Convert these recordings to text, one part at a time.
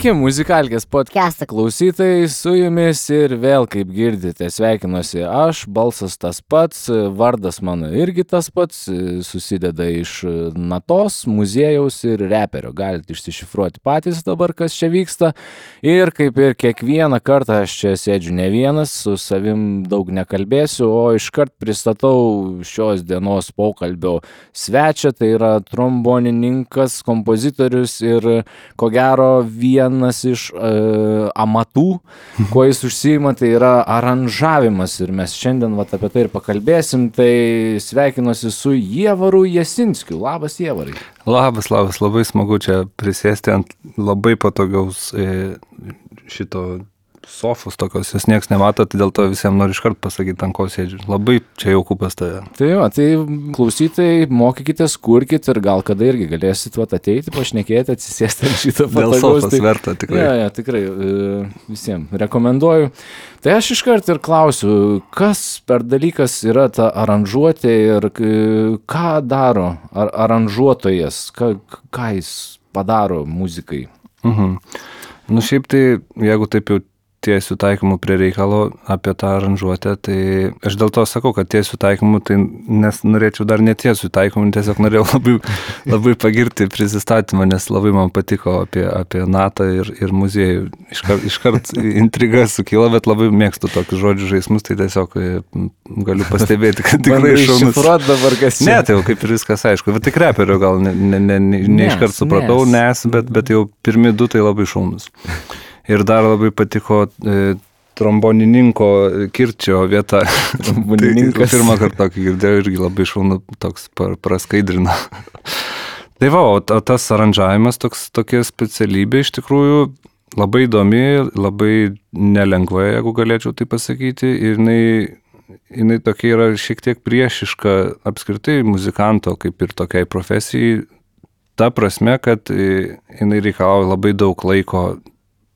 Sveiki, Muzikalkės podcast'o klausytojai, su jumis ir vėl, kaip girdite, sveikinuosi aš, balsas tas pats, vardas mano irgi tas pats, susideda iš natos, muziejaus ir reperio. Galite išsišifruoti patys dabar, kas čia vyksta. Ir kaip ir kiekvieną kartą aš čia sėdžiu ne vienas, su savim daug nekalbėsiu, o iškart pristatau šios dienos pokalbio svečią, tai yra trombonininkas, kompozitorius ir ko gero vienas iš amatų, kuo jis užsiima, tai yra aranžavimas ir mes šiandien apie tai ir pakalbėsim, tai sveikinuosi su Ievaru Jasinskiu. Labas, Ievarai. Labas, labai smagu čia prisėsti ant labai patogaus šito sofos tokios, jūs nieks nemato, tai dėl to visiems noriu iškart pasakyti, ant ko sėdžiu. Labai čia jauku pas tave. Tai klausytojai, mokykitės, kurkit ir gal kada irgi galėsit ateiti, pašnekėti, atsisėsti ant šito patagaus. Dėl sofos verta, tikrai. Ja, tikrai, visiems rekomenduoju. Tai aš iškart ir klausiu, kas per dalykas yra ta aranžuotė ir ką daro aranžuotojas, ką jis padaro muzikai? Nu šiaip tai, jeigu taip jau tiesių taikymų prie reikalo apie tą aranžuotę, tai aš dėl to sakau, kad tiesių taikymų, tai nes norėčiau dar netiesių taikymų, tiesiog norėjau labai pagirti prisistatymą, nes labai man patiko apie natą ir muziejų. Iškart intriga sukilo, bet labai mėgstu tokius žodžių žaismus, tai tiesiog galiu pastebėti, kad tikrai šaunus. Dabar kas čia? Ne, tai jau kaip ir viskas aišku, bet tik reperio gal ne iškart supratau, bet jau pirmi du tai labai šaunus. Ir dar labai patiko trombonininko Kirčio vieta. Trombonininkas. Tai pirmą kartą tokį girdėjau irgi labai šaunu, toks praskaidrina. Tai o tas aranžavimas tokia specialybė iš tikrųjų labai įdomi, labai nelengva, jeigu galėčiau tai pasakyti. Ir jinai tokia yra šiek tiek priešiška apskritai muzikanto, kaip ir tokiai profesijai. Ta prasme, kad jinai reikalauja labai daug laiko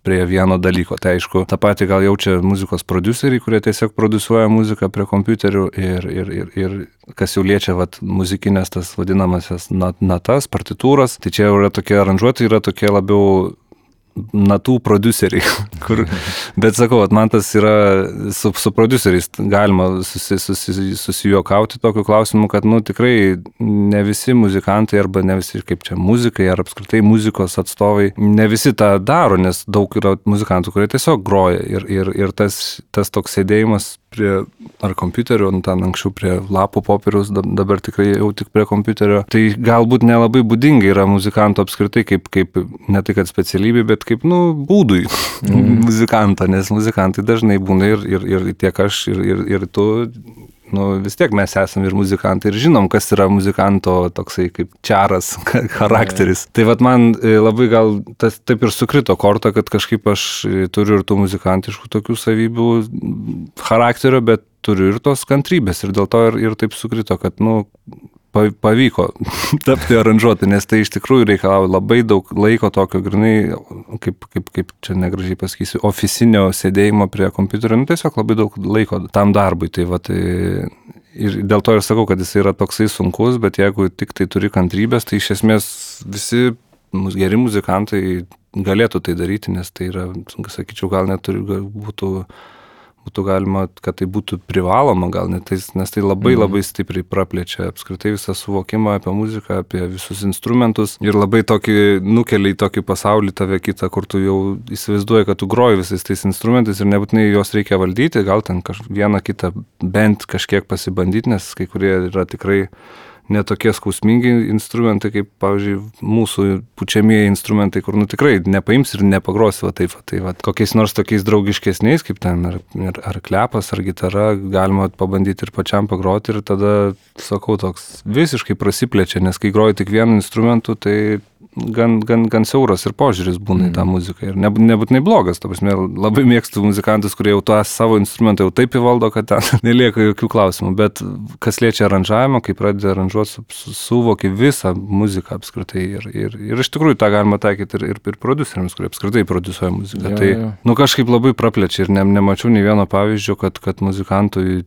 prie vieno dalyko. Tai aišku, tą patį gal jaučia muzikos prodiuseriai, kurie tiesiog produsuoja muziką prie kompiuterių ir kas jau liečia muzikinės tas vadinamasias natas, partitūras. Tai čia yra tokie aranžuotojai, yra tokie labiau natų prodiuseriai. Bet sakau, man tas yra su prodiuseriais galima susijuokauti tokiu klausimu, kad tikrai ne visi muzikantai arba ne visi kaip čia muzikai ar apskritai muzikos atstovai, ne visi tą daro, nes daug yra muzikantų, kurie tiesiog groja ir tas toks sėdėjimas prie ar kompiuterio, ten anksčiau prie lapų popieriaus, dabar tikrai jau tik prie kompiuterio. Tai galbūt nelabai būdingai yra muzikanto apskritai kaip ne tai kad specialybė, bet kaip būdui muzikanto, nes muzikantai dažnai būna ir tiek aš ir tu, vis tiek mes esame ir muzikantai ir žinom, kas yra muzikanto toksai kaip čaras charakteris. Tai man labai gal tas taip ir sukrito korta, kad kažkaip aš turiu ir tų muzikantiškų tokių savybių charakterio, bet turiu ir tos kantrybės ir dėl to ir taip sukrito, kad pavyko tapti aranžuoti, nes tai iš tikrųjų reikalauja labai daug laiko tokio grinai, kaip čia negražiai pasakysiu, ofisinio sėdėjimo prie kompiuterio, tiesiog labai daug laiko tam darbui. Tai ir dėl to ir sakau, kad jis yra toksai sunkus, bet jeigu tik tai turi kantrybės, tai iš esmės visi geri muzikantai galėtų tai daryti, nes tai yra, sakyčiau, gal net būtų galima, kad tai būtų privaloma gal net, nes tai labai stipriai praplečia apskritai visą suvokimą apie muziką, apie visus instrumentus ir labai nukelia į tokį pasaulį tave kitą, kur tu jau įsivaizduoji, kad tu groji visais tais instrumentais ir nebūtinai juos reikia valdyti, gal ten vieną kitą bent kažkiek pasibandyti, nes kai kurie yra tikrai netokie skausmingi instrumentai, kaip, pavyzdžiui, mūsų pučiamieji instrumentai, kur tikrai nepaims ir nepagrosi taip. Kokiais nors tokiais draugiškesniais, kaip ten ar klepas, ar gitara, galima pabandyti ir pačiam pagroti ir tada, sakau, toks visiškai prasiplečia, nes kai groji tik vienu instrumentu, tai gan siauras ir požiūris būna į tą muziką ir nebūtinai blogas, ta prasme, labai mėgstu muzikantus, kurie jau tą savo instrumentą jau taip įvaldo, kad ten nelieka jokių klausimų, bet kas liečia aranžavimą, kai pradedi aranžuoti, suvoki visą muziką apskritai ir iš tikrųjų tą galima taikyti ir prodiuseriams, kurie apskritai prodiusuoja muziką. Tai kažkaip labai praplečia ir nemačiau nei vieno pavyzdžio, kad muzikantui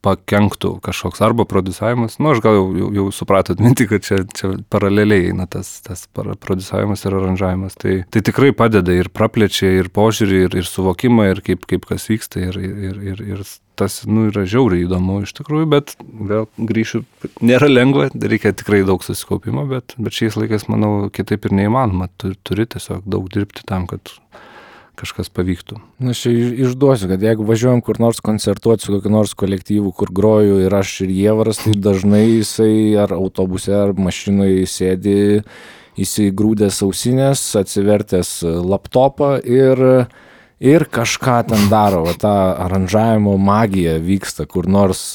pakenktų kažkoks arba prodiusavimas. Aš gal jau supratot mintį, kad čia paraleliai eina tas prodiusavimas ir aranžavimas. Tai tikrai padeda ir praplečia ir požiūrį, ir suvokimą, ir kaip kas vyksta, ir tas yra žiauriai įdomu iš tikrųjų, bet vėl grįšiu, nėra lengva, reikia tikrai daug susikaupimo, bet šiais laikais, manau, kitaip ir neįmanoma. Turi tiesiog daug dirbti tam, kad kažkas pavyktų. Aš išduosiu, kad jeigu važiuojam kur nors koncertuoti su kokiu nors kolektyvu, kur groju ir aš ir Jievaras, tai dažnai jisai ar autobuse, ar mašinoje sėdi įsigrūdęs ausinės, atsivertęs laptopą ir kažką ten daro, ta aranžavimo magija vyksta kur nors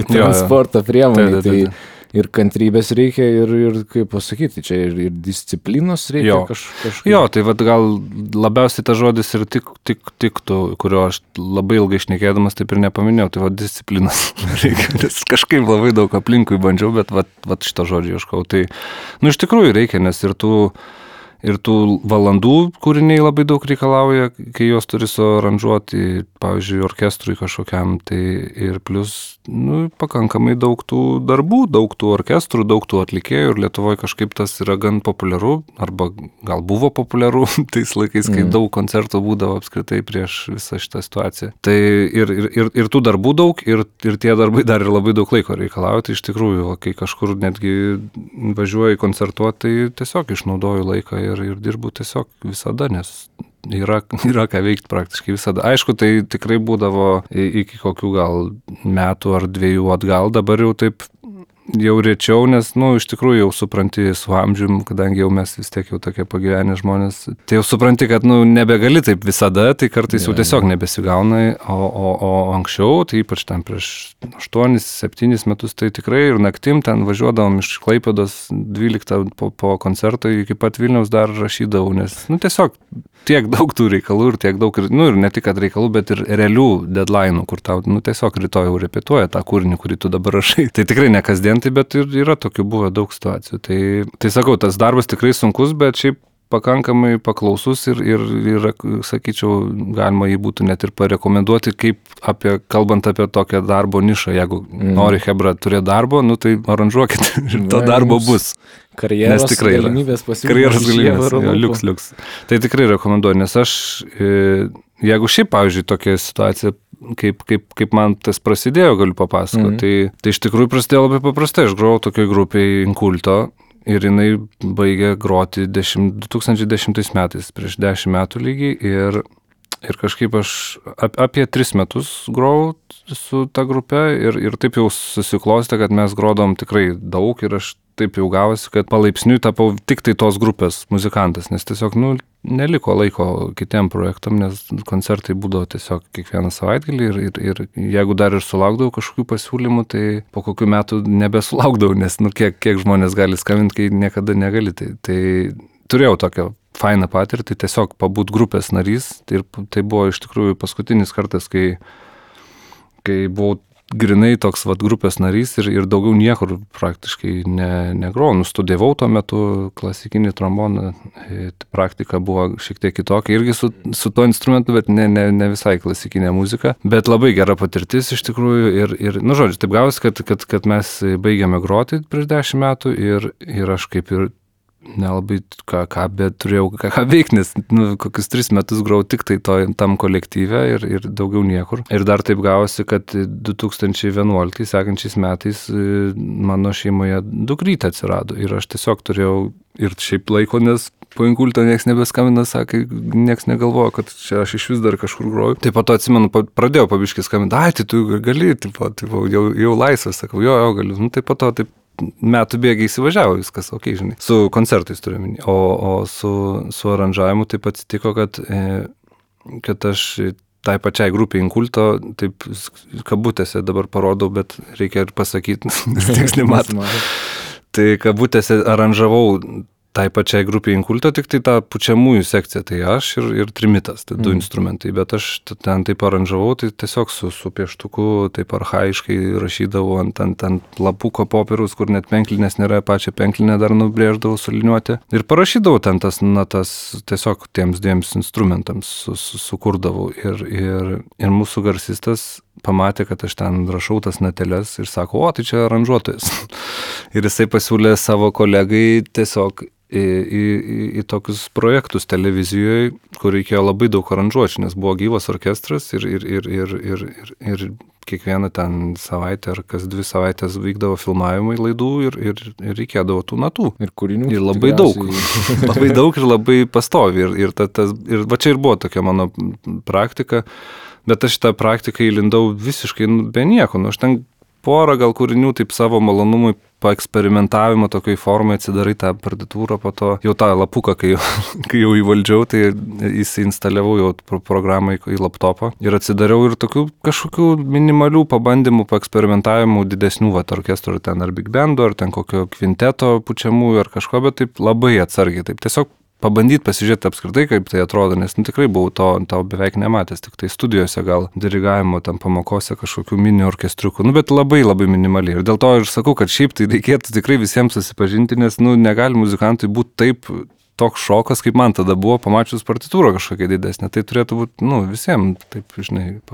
transporto priemonė. Tai ir kantrybės reikia, ir kaip pasakyti, čia ir disciplinos reikia kažkaip. Jo, tai gal labiausiai tas žodis ir tiktų, kurio aš labai ilgai šnekėdamas taip ir nepaminėjau, tai disciplinos reikia, nes kažkaip labai daug aplinkui bandžiau, bet šito žodžio ieškau. Tai, iš tikrųjų reikia, nes ir tų valandų kūriniai labai daug reikalauja, kai juos turi suaranžuoti, pavyzdžiui, orkestrui kažkokiam, tai ir plus, pakankamai daug tų darbų, daug tų orkestrų, daug tų atlikėjų, ir Lietuvoje kažkaip tas yra gan populiaru, arba gal buvo populiaru tais laikais, kai daug koncertų būdavo apskritai prieš visą šitą situaciją. Tai ir tų darbų daug, ir tie darbai dar ir labai daug laiko reikalauja, tai iš tikrųjų, kai kažkur netgi važiuoju koncertuoti, tai tiesiog išnaudoju laiką ir dirbu tiesiog visada, nes yra ką veikti praktiškai visada. Aišku, tai tikrai būdavo iki kokių gal metų ar 2 atgal, dabar jau taip jau rečiau, nes, iš tikrųjų jau supranti su amžium, kadangi jau mes vis tiek jau tokie pagyvenę žmonės, tai jau supranti, kad, nebegali taip visada, tai kartais jau tiesiog nebesigauna, o anksčiau, tai ypač ten prieš 8-7 metus, tai tikrai ir naktim ten važiuodavom iš Klaipėdos 12 po koncerto iki pat Vilniaus dar rašydavau, nes, tiesiog tiek daug tų reikalų ir tiek daug, ir ne tik kad reikalų, bet ir realių deadline'ų, kur tau, tiesiog rytoj jau repetuoja tą kūrinį, kurį tu dabar rašai. Tai tikrai ne kasdien, bet ir yra tokių buvo daug situacijų. Tai sakau, tas darbas tikrai sunkus, bet šiaip pakankamai paklausus ir sakyčiau, galima jį būtų net ir parekomenduoti, kalbant apie tokią darbo nišą. Jeigu nori chebra turėti darbo, tai aranžuokit ir to darbo bus. Karjeros galimybės pasiūlymas. Liuks. Tai tikrai rekomenduoju, nes aš, jeigu šiaip, pavyzdžiui, tokia situacija, kaip man tas prasidėjo, galiu papasakoti, tai iš tikrųjų prasidėjo labai paprastai. Aš grojau tokioj grupėj Inkulto ir jinai baigė groti 2010 metais, prieš 10 metų lygiai, ir kažkaip aš apie 3 metus grojau su ta grupe ir taip jau susiklostė, kad mes grodom tikrai daug ir aš taip jau gavosi, kad palaipsniui tapau tik tai tos grupės muzikantas, nes tiesiog, neliko laiko kitiem projektam, nes koncertai būdavo tiesiog kiekvieną savaitgalį ir jeigu dar ir sulaukdavau kažkokių pasiūlymų, tai po kokių metų nebesulaukdavau, nes, kiek žmonės gali skambinti, kai niekada negali. Tai turėjau tokią fainą patirtį, tiesiog pabūt grupės narys, ir tai buvo iš tikrųjų paskutinis kartas, kai buvau grinai toks grupės narys ir daugiau niekur praktiškai negrojau. Studijavau tuo metu klasikinį tromboną, praktika buvo šiek tiek kitokia, irgi su tuo instrumentu, bet ne visai klasikinė muzika, bet labai gera patirtis iš tikrųjų ir žodžiu, taip gavosi, kad mes baigėme groti prieš 10 metų ir aš kaip ir nelabai bet turėjau ką veikti, nes kokius 3 metus grojau tik tai tam kolektyve ir daugiau niekur. Ir dar taip gavosi, kad 2011 sekančiais metais mano šeimoje dukrytė atsirado ir aš tiesiog turėjau ir šiaip laiko, nes po Inkulto nieks nebeskambina, sakė, nieks negalvojo, kad čia aš iš vis dar kažkur groju. Tai po to atsimenu, pradėjau pabiškai skambinti, tai tu gali, jau laisvas, sakau, jo, galiu. Tai po to taip metų bėgiai įsivažiavo viskas, žinai. Su koncertais turiu minį. O su aranžavimu taip atsitiko, kad aš tai pačiai grupiai Inkulto, taip kabutėse dabar parodau, bet reikia ir pasakyti, nes tieks nematom. Tai kabutėse aranžavau tai pačiai grupiai Inkulto, tik tai tą pučiamųjų sekciją, tai aš ir trimitas, tai 2 instrumentai, bet aš ten taip aranžavau, tai tiesiog su pieštuku taip archaiškai rašydavau ant lapuko popieriaus, kur net penklinės nėra, pačią penklinę dar nubrėždavau suliniuoti ir parašydavau ten tas natas tiesiog tiems 2 instrumentams sukurdavau ir mūsų garsistas pamatė, kad aš ten rašau tas nateles ir sako, o, tai čia aranžuotojas. Ir jisai pasiūlė savo kolegai tiesiog į tokius projektus televizijoje, kur reikėjo labai daug aranžuočių, nes buvo gyvas orkestras ir kiekvieną ten savaitę ar kas 2 savaitės vykdavo filmavimai laidų ir reikėdavo tų natų. Ir kūrinių. Ir labai daug. Labai daug ir labai pastovi. Ir va čia ir buvo tokia mano praktika, bet aš tą praktiką įlindau visiškai be nieko. Aš ten porą gal kūrinių taip savo malonumui paeksperimentavimo tokioj formai atsidarai tą partitūrą, po to jau tą lapuką, kai jau įvaldžiau, tai įsiinstaliavau jau programą į laptopą ir atsidariau ir tokių kažkokių minimalių pabandymų, paeksperimentavimų didesnių orkestrų, ten ar big bando, ar ten kokio kvinteto pučiamųjų ar kažko, bet taip labai atsargiai, taip tiesiog pabandyti pasižiūrėti apskritai, kaip tai atrodo, nes tikrai buvau to beveik nematęs, tik tai studijose gal dirigavimo, tam pamokose kažkokių mini orkestriukų, bet labai labai minimaliai. Ir dėl to ir sakau, kad šiaip tai reikėtų tikrai visiems susipažinti, nes negali muzikantui būti taip toks šokas, kaip man tada buvo, pamačius partitūrą kažkokia didesnė. Tai turėtų būti, visiems taip,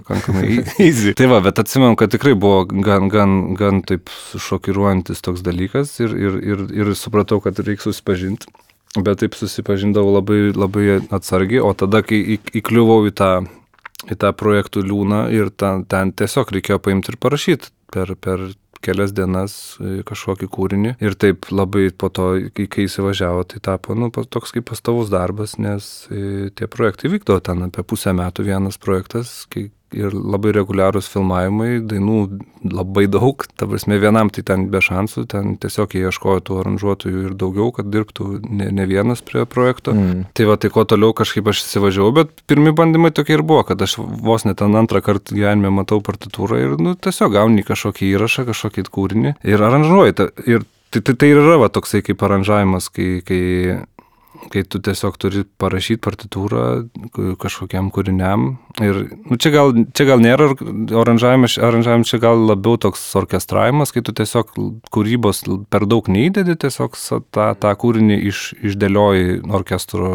pakankamai easy. Tai va, bet atsimenu, kad tikrai buvo gan taip šokiruojantis toks dalykas ir supratau, kad reikia susipažinti. Bet taip susipažindavau labai, labai atsargiai, o tada, kai įkliuvau į tą projektų liūną ir ten tiesiog reikėjo paimti ir parašyti per kelias dienas kažkokį kūrinį. Ir taip labai po to, kai įsivažiavo, tai tapo toks kaip pastovus darbas, nes tie projektai vykdavo ten apie pusę metų vienas projektas, ir labai reguliarūs filmavimai, dainų labai daug, ta prasme vienam tai ten be šansų, ten tiesiog jie ieškojo tų aranžuotojų ir daugiau, kad dirbtų ne vienas prie projekto. Tai va, tai kuo toliau kažkaip aš įsivažiavau, bet pirmi bandymai tokie ir buvo, kad aš vos net ten antrą kartą gyvenime matau partitūrą ir tiesiog gauni kažkokį įrašą, kažkokį kūrinį ir aranžuoji. Ir tai yra va, toksai kaip aranžavimas, kai tu tiesiog turi parašyti partitūrą kažkokiam kūriniam. Ir čia gal nėra aranžavimas, čia gal labiau toks orkestravimas, kai tu tiesiog kūrybos per daug neįdedi, tiesiog tą kūrinį išdėlioji orkestro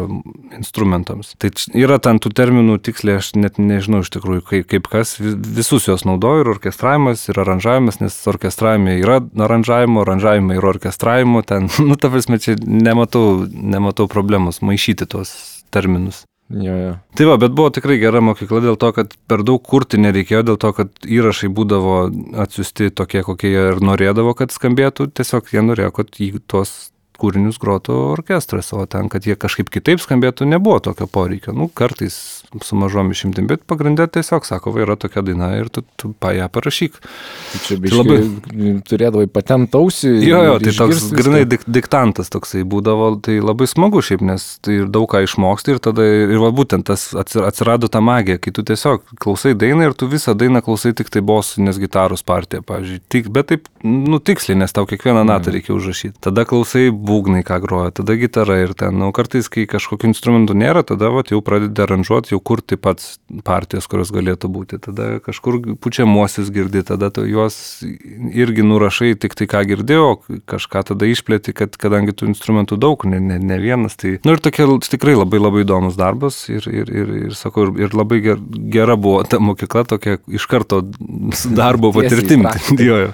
instrumentams. Tai yra ten tų terminų tiksliai, aš net nežinau iš tikrųjų, kaip kas, visus juos naudoju, ir orkestravimas, ir aranžavimas, nes orkestravime yra aranžavimo yra orkestravimo, ten, ta prasme, čia nematau problemos maišyti tuos terminus. Jo. Tai va, bet buvo tikrai gera mokykla dėl to, kad per daug kurti nereikėjo, dėl to, kad įrašai būdavo atsiųsti tokie, kokie jie ir norėdavo, kad skambėtų, tiesiog jie norėjo, kad tuos kūrinius grotų orkestras, o ten, kad jie kažkaip kitaip skambėtų, nebuvo tokio poreikio. Kartais su mažom išimtim, bet pagrindė tiesiog sako, yra tokia daina ir tu ją parašyk. Tai čia biškai turėdavai patent ausį. Jo, tai toks grinai diktantas toksai būdavo, tai labai smagu šiaip, nes tai daug ką išmoksti ir tada, ir va būtent tas atsirado ta magija, kai tu tiesiog klausai dainą ir tu visą dainą klausai tik tai bosinės gitaros partiją, pavyzdžiui. Bet taip, tiksliai, nes tau kiekvieną natą reikia užrašyti. Tada klausai būgnai, ką groja, tada gitara ir ten, kartais, kai kažkokių instrumentų nėra, tada jau pradedi aranžuoti, jau kurti pats partijas, kurios galėtų būti. Tada kažkur pučiamuosius girdi, tada tu juos irgi nurašai tik tai, ką girdėjau, kažką tada išplėti, kadangi tų instrumentų daug, ne vienas. Tai, ir tokia tikrai labai labai įdomus darbas ir sakau, ir labai gera buvo ta mokykla, tokia iš karto darbo patirtim.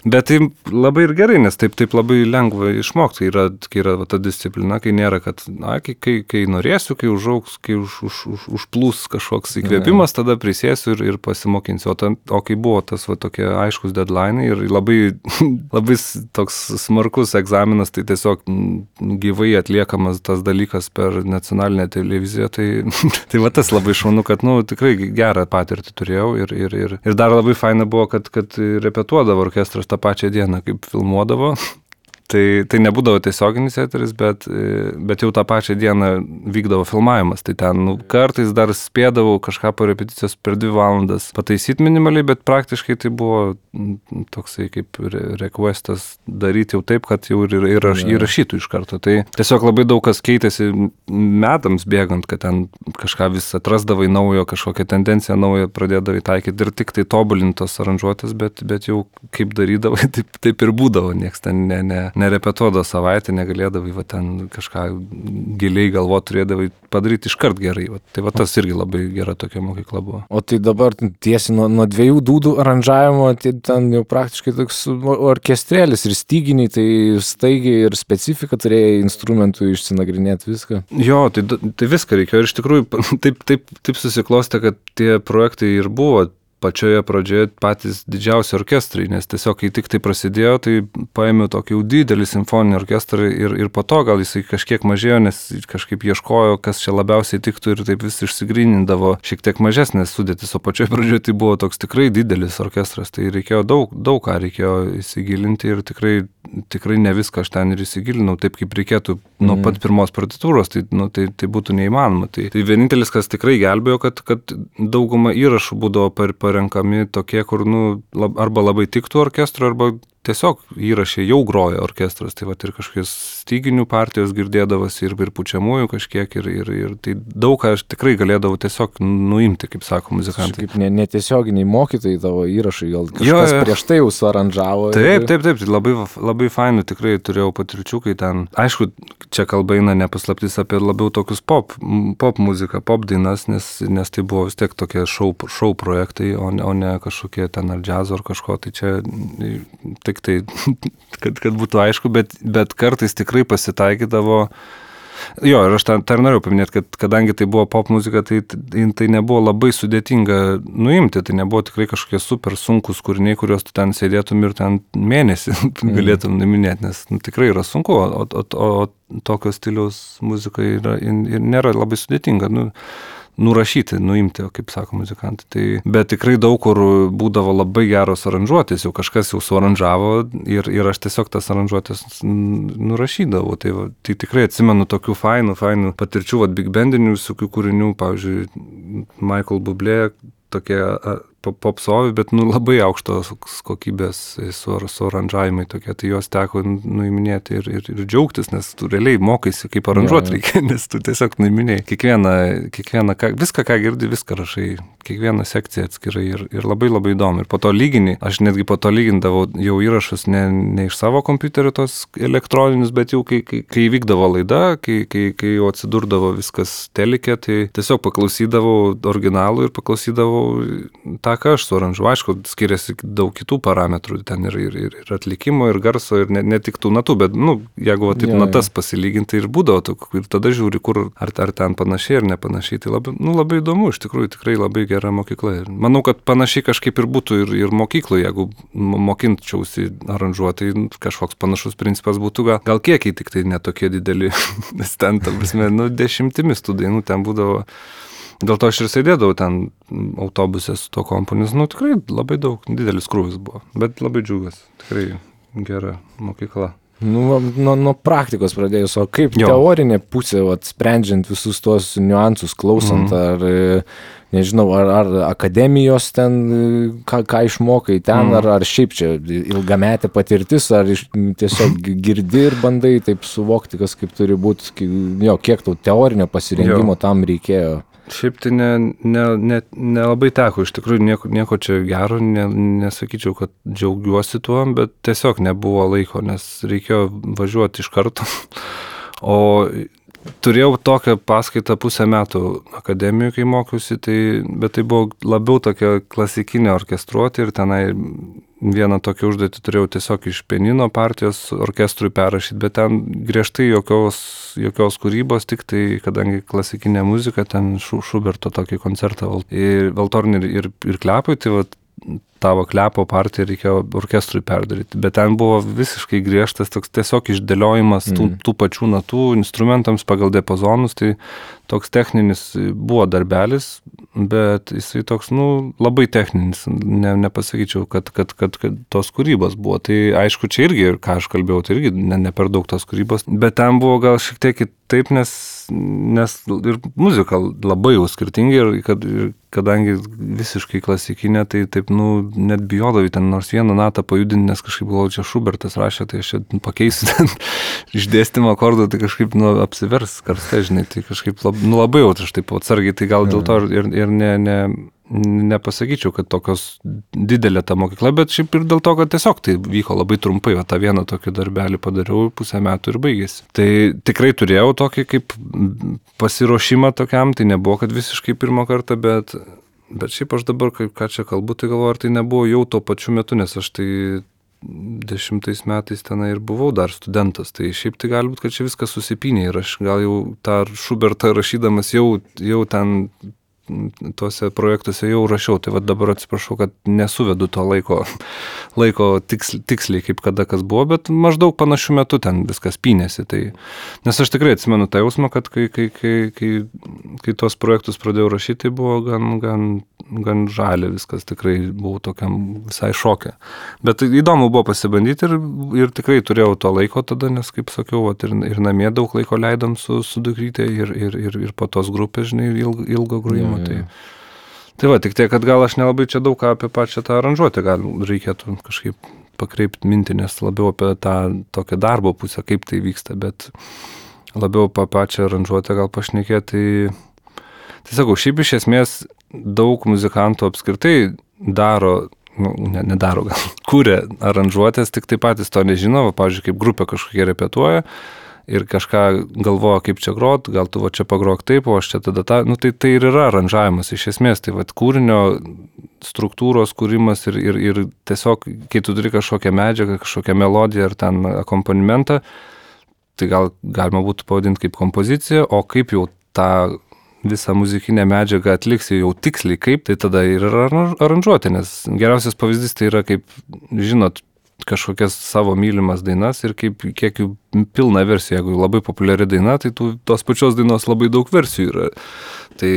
Bet tai labai ir gerai, nes taip labai lengva išmokti, kai yra ta disciplina, kai nėra, kad kai norėsiu, kai užaugs, kai užplūs kažkoks įkvėpimas, tada prisėsiu ir pasimokinsiu. O kai buvo tas tokie aiškus deadline ir labai toks smarkus egzaminas, tai tiesiog gyvai atliekamas tas dalykas per nacionalinę televiziją, tai va tas labai šaunu, kad tikrai gerą patirtį turėjau ir dar labai faina buvo, kad repetuodavo orkestras tą pačią dieną, kaip filmuodavo. Tai nebūdavo tiesioginis eteris, bet jau tą pačią dieną vykdavo filmavimas. Tai ten kartais dar spėdavau kažką po repeticijos per 2 valandas pataisyti minimaliai, bet praktiškai tai buvo toksai kaip requestas daryti jau taip, kad jau ir įrašytų iš karto. Tai tiesiog labai daug kas keitėsi metams bėgant, kad ten kažką vis atrasdavai naujo, kažkokią tendenciją naują pradėdavai taikyti ir tik tai tobulintos aranžuotės, bet jau kaip darydavai, taip ir būdavo, nieks ten nerepetuodavo savaitę, negalėdavai va, ten kažką giliai galvo turėdavai padaryti iškart gerai. Va. Tai va tas irgi labai gera tokia mokykla buvo. O tai dabar tiesi nuo 2 dūdų aranžavimo, tai ten jau praktiškai toks orkestrėlis ir styginiai, tai staigiai ir specifika turėjai instrumentų išsinagrinėti viską. Jo, tai viską reikėjo ir iš tikrųjų taip susiklostė, kad tie projektai ir buvo pačioje pradžioje patys didžiausi orkestrai, nes tiesiog, kai tik tai prasidėjo, tai paėmiau tokį jau didelį simfoninį orkestrą ir po to gal jisai kažkiek mažėjo, nes kažkaip ieškojo, kas čia labiausiai tiktų ir taip vis išsigrynindavo šiek tiek mažesnės sudėtis, o pačioje pradžioje tai buvo toks tikrai didelis orkestras, tai reikėjo daug ką reikėjo įsigilinti ir tikrai ne viską aš ten ir įsigilinau, taip kaip reikėtų nuo pat pirmos partitūros, tai būtų neįmanoma. Tai vienintelis, kas tikrai gelbėjo, kad dauguma įrašų būdavo parenkami tokie, kur arba labai tiktų orkestro, arba tiesiog įrašė jau groja orkestras, tai va ir kažkokios styginių partijos girdėdavosi ir pučiamųjų kažkiek ir tai daug ką aš tikrai galėdavau tiesiog nuimti, kaip sako muzikantai. Kaip netiesioginiai mokytojai tavo įrašai, gal kažkas prieš tai jau suaranžavo. Taip, tai labai fainų tikrai turėjau patirčių, kai ten, aišku, čia kalba eina nepaslaptis apie labiau tokius pop muziką, pop dainas, nes tai buvo vis tiek tokie šou projektai, o ne kažkokie ten ar džiazo ar kažko, tai čia tik tai, kad būtų aišku, bet kartais tikrai pasitaikydavo. Jo, ir aš tą norėjau paminėti, kad kadangi tai buvo pop muzika, tai nebuvo labai sudėtinga nuimti, tai nebuvo tikrai kažkokie super sunkus kūriniai, kuriuos tu ten sėdėtum ir ten mėnesį galėtum nuiminėti, nes tikrai yra sunku, o tokio stiliaus muzika nėra labai sudėtinga. Nurašyti, nuimti, kaip sako muzikantai. Bet tikrai daug kur būdavo labai geros aranžuotės, jau kažkas jau suaranžavo ir aš tiesiog tas aranžuotės nurašydavau. Tai tikrai atsimenu tokių fainų patirčių, big bandinių visokių kūrinių, pavyzdžiui, Michael Bublé, tokie popsovi, bet labai aukštos kokybės suaranžavimai tokie, tai jos teko nuiminėti ir džiaugtis, nes tu realiai mokaisi, kaip aranžuoti reikia, nes tu tiesiog nuiminėjai. Viską, ką girdi, viską rašai, kiekvieną sekciją atskirai ir labai įdomu. Ir po to aš netgi po to lygindavau jau įrašus ne iš savo kompiuterio tos elektroninius, bet jau kai vykdavo laida, kai jau atsidurdavo viskas telike, tai tiesiog paklausydavau originalų ir paklausydavau tą, ką aš suaranžuoju. Aišku, skiriasi daug kitų parametrų, ten ir atlikimo, ir garso, ir ne tik tų natų, bet, jeigu taip natas pasilyginti ir būdavo, ir tada žiūri, kur ar ten panašiai ar nepanašiai, tai labai įdomu, iš tikrųjų, tikrai labai gera mokykla. Ir manau, kad panašiai kažkaip ir būtų ir mokykloje, jeigu mokinčiausi aranžuoti, kažkoks panašus principas būtų, gal kiekiai tik tai netokie dideli, nes ten, ta prasme, 10 tų dainų ten būdavo. Dėl to aš ir sėdėdavau ten autobuse su to komponis, tikrai labai didelis krūvis buvo, bet labai džiugas, tikrai gera mokykla. Nuo praktikos pradėjus, o kaip teorinė pusė, sprendžiant visus tuos niuansus, klausant, ar, nežinau, ar akademijos ten, ką išmokai ten, ar šiaip čia ilgametė patirtis, ar tiesiog girdi ir bandai taip suvokti, kas kaip turi būti, kiek tau teorinio pasirengimo tam reikėjo. Šiaip tai nelabai teko, iš tikrųjų nieko čia gero, nesakyčiau, kad džiaugiuosi tuo, bet tiesiog nebuvo laiko, nes reikėjo važiuoti iš karto. O turėjau tokią paskaitą 1,5 metų akademijoje, kai mokiausi, bet tai buvo labiau tokia klasikinė orkestruotė ir tenai vieną tokią užduotį turėjau tiesiog iš pianino partijos orkestrui perrašyti, bet ten griežtai jokios kūrybos, tik tai, kadangi klasikinė muzika, ten Šuberto tokį koncertą valtornį ir klepui, tai tavo klepo partiją reikėjo orkestrui perdaryti, bet ten buvo visiškai griežtas toks tiesiog išdėliojimas tų pačių natų instrumentams pagal diapazonus, tai toks techninis buvo darbelis, bet jisai toks, labai techninis, nepasakyčiau, kad tos kūrybos buvo. Tai aišku, čia irgi, ką aš kalbėjau, tai irgi ne per daug tos kūrybos, bet ten buvo gal šiek tiek kitaip, nes ir muzika labai jau skirtingi ir kadangi visiškai klasikinė, tai taip, net bijodavai ten nors vieną natą pajudinti, nes kažkaip galvoju, čia Šubertas rašė, tai aš čia pakeisiu ten išdėstymą akordų, tai kažkaip apsivers karste, žinai, tai kažkaip labai jau aš taip atsargiai, tai gal dėl to ir nepasakyčiau, kad tokios didelė ta mokykla, bet šiaip ir dėl to, kad tiesiog tai vyko labai trumpai, o tą vieną tokį darbelį padariau, pusę metų ir baigėsi. Tai tikrai turėjau tokį kaip pasiruošimą tokiam, tai nebuvo, kad visiškai pirmą kartą, bet šiaip aš dabar, ką čia kalbu, tai galvoju, ar tai nebuvo jau tuo pačiu metu, nes aš tai 10 metais tenai ir buvau dar studentas, tai šiaip tai gali būti, kad čia viskas susipynė ir aš gal jau tą Šubertą rašydamas jau ten tuose projektuose jau rašiau, tai dabar atsiprašau, kad nesuvedu to laiko tiksliai, kaip kada kas buvo, bet maždaug panašių metų ten viskas pynėsi. Tai, nes aš tikrai atsimenu tą jausmą, kad kai tuos projektus pradėjau rašyti, tai buvo gan žalia viskas, tikrai buvau tokiam visai šoke. Bet įdomu buvo pasibandyti ir tikrai turėjau to laiko tada, nes, kaip sakiau, ir namie daug laiko leidom su dukrytė ir po tos grupės, žinai, ilgo grojimo. Tai va, tik tiek, kad gal aš nelabai čia daug ką apie pačią tą aranžuotę gal reikėtų kažkaip pakreipti mintį, nes labiau apie tą tokią darbo pusę, kaip tai vyksta, bet labiau apie pačią aranžuotę gal pašnekėti. Tai sakau, šiaip iš esmės daug muzikantų apskritai daro, nedaro gal, kuria aranžuotės, tik tai patys to nežino, pavyzdžiui, kaip grupė kažkokie repetuoja, ir kažką galvoja, kaip čia grot, gal tu va čia pagrok taip, o aš čia tada tą, tai ir yra aranžavimas iš esmės, tai va kūrinio struktūros kūrimas ir tiesiog, kai tu turi kažkokią medžiagą, kažkokią melodiją ar ten akompanimentą, tai gal galima būtų pavadinti kaip kompoziciją, o kaip jau tą visą muzikinę medžiagą atliksi jau tiksliai kaip, tai tada ir yra aranžuoti, nes geriausias pavyzdys tai yra kaip, žinot, kažkokias savo mylimas dainas ir kiek jų pilna versija, jeigu labai populiari daina, tai tos pačios dainos labai daug versijų yra. Tai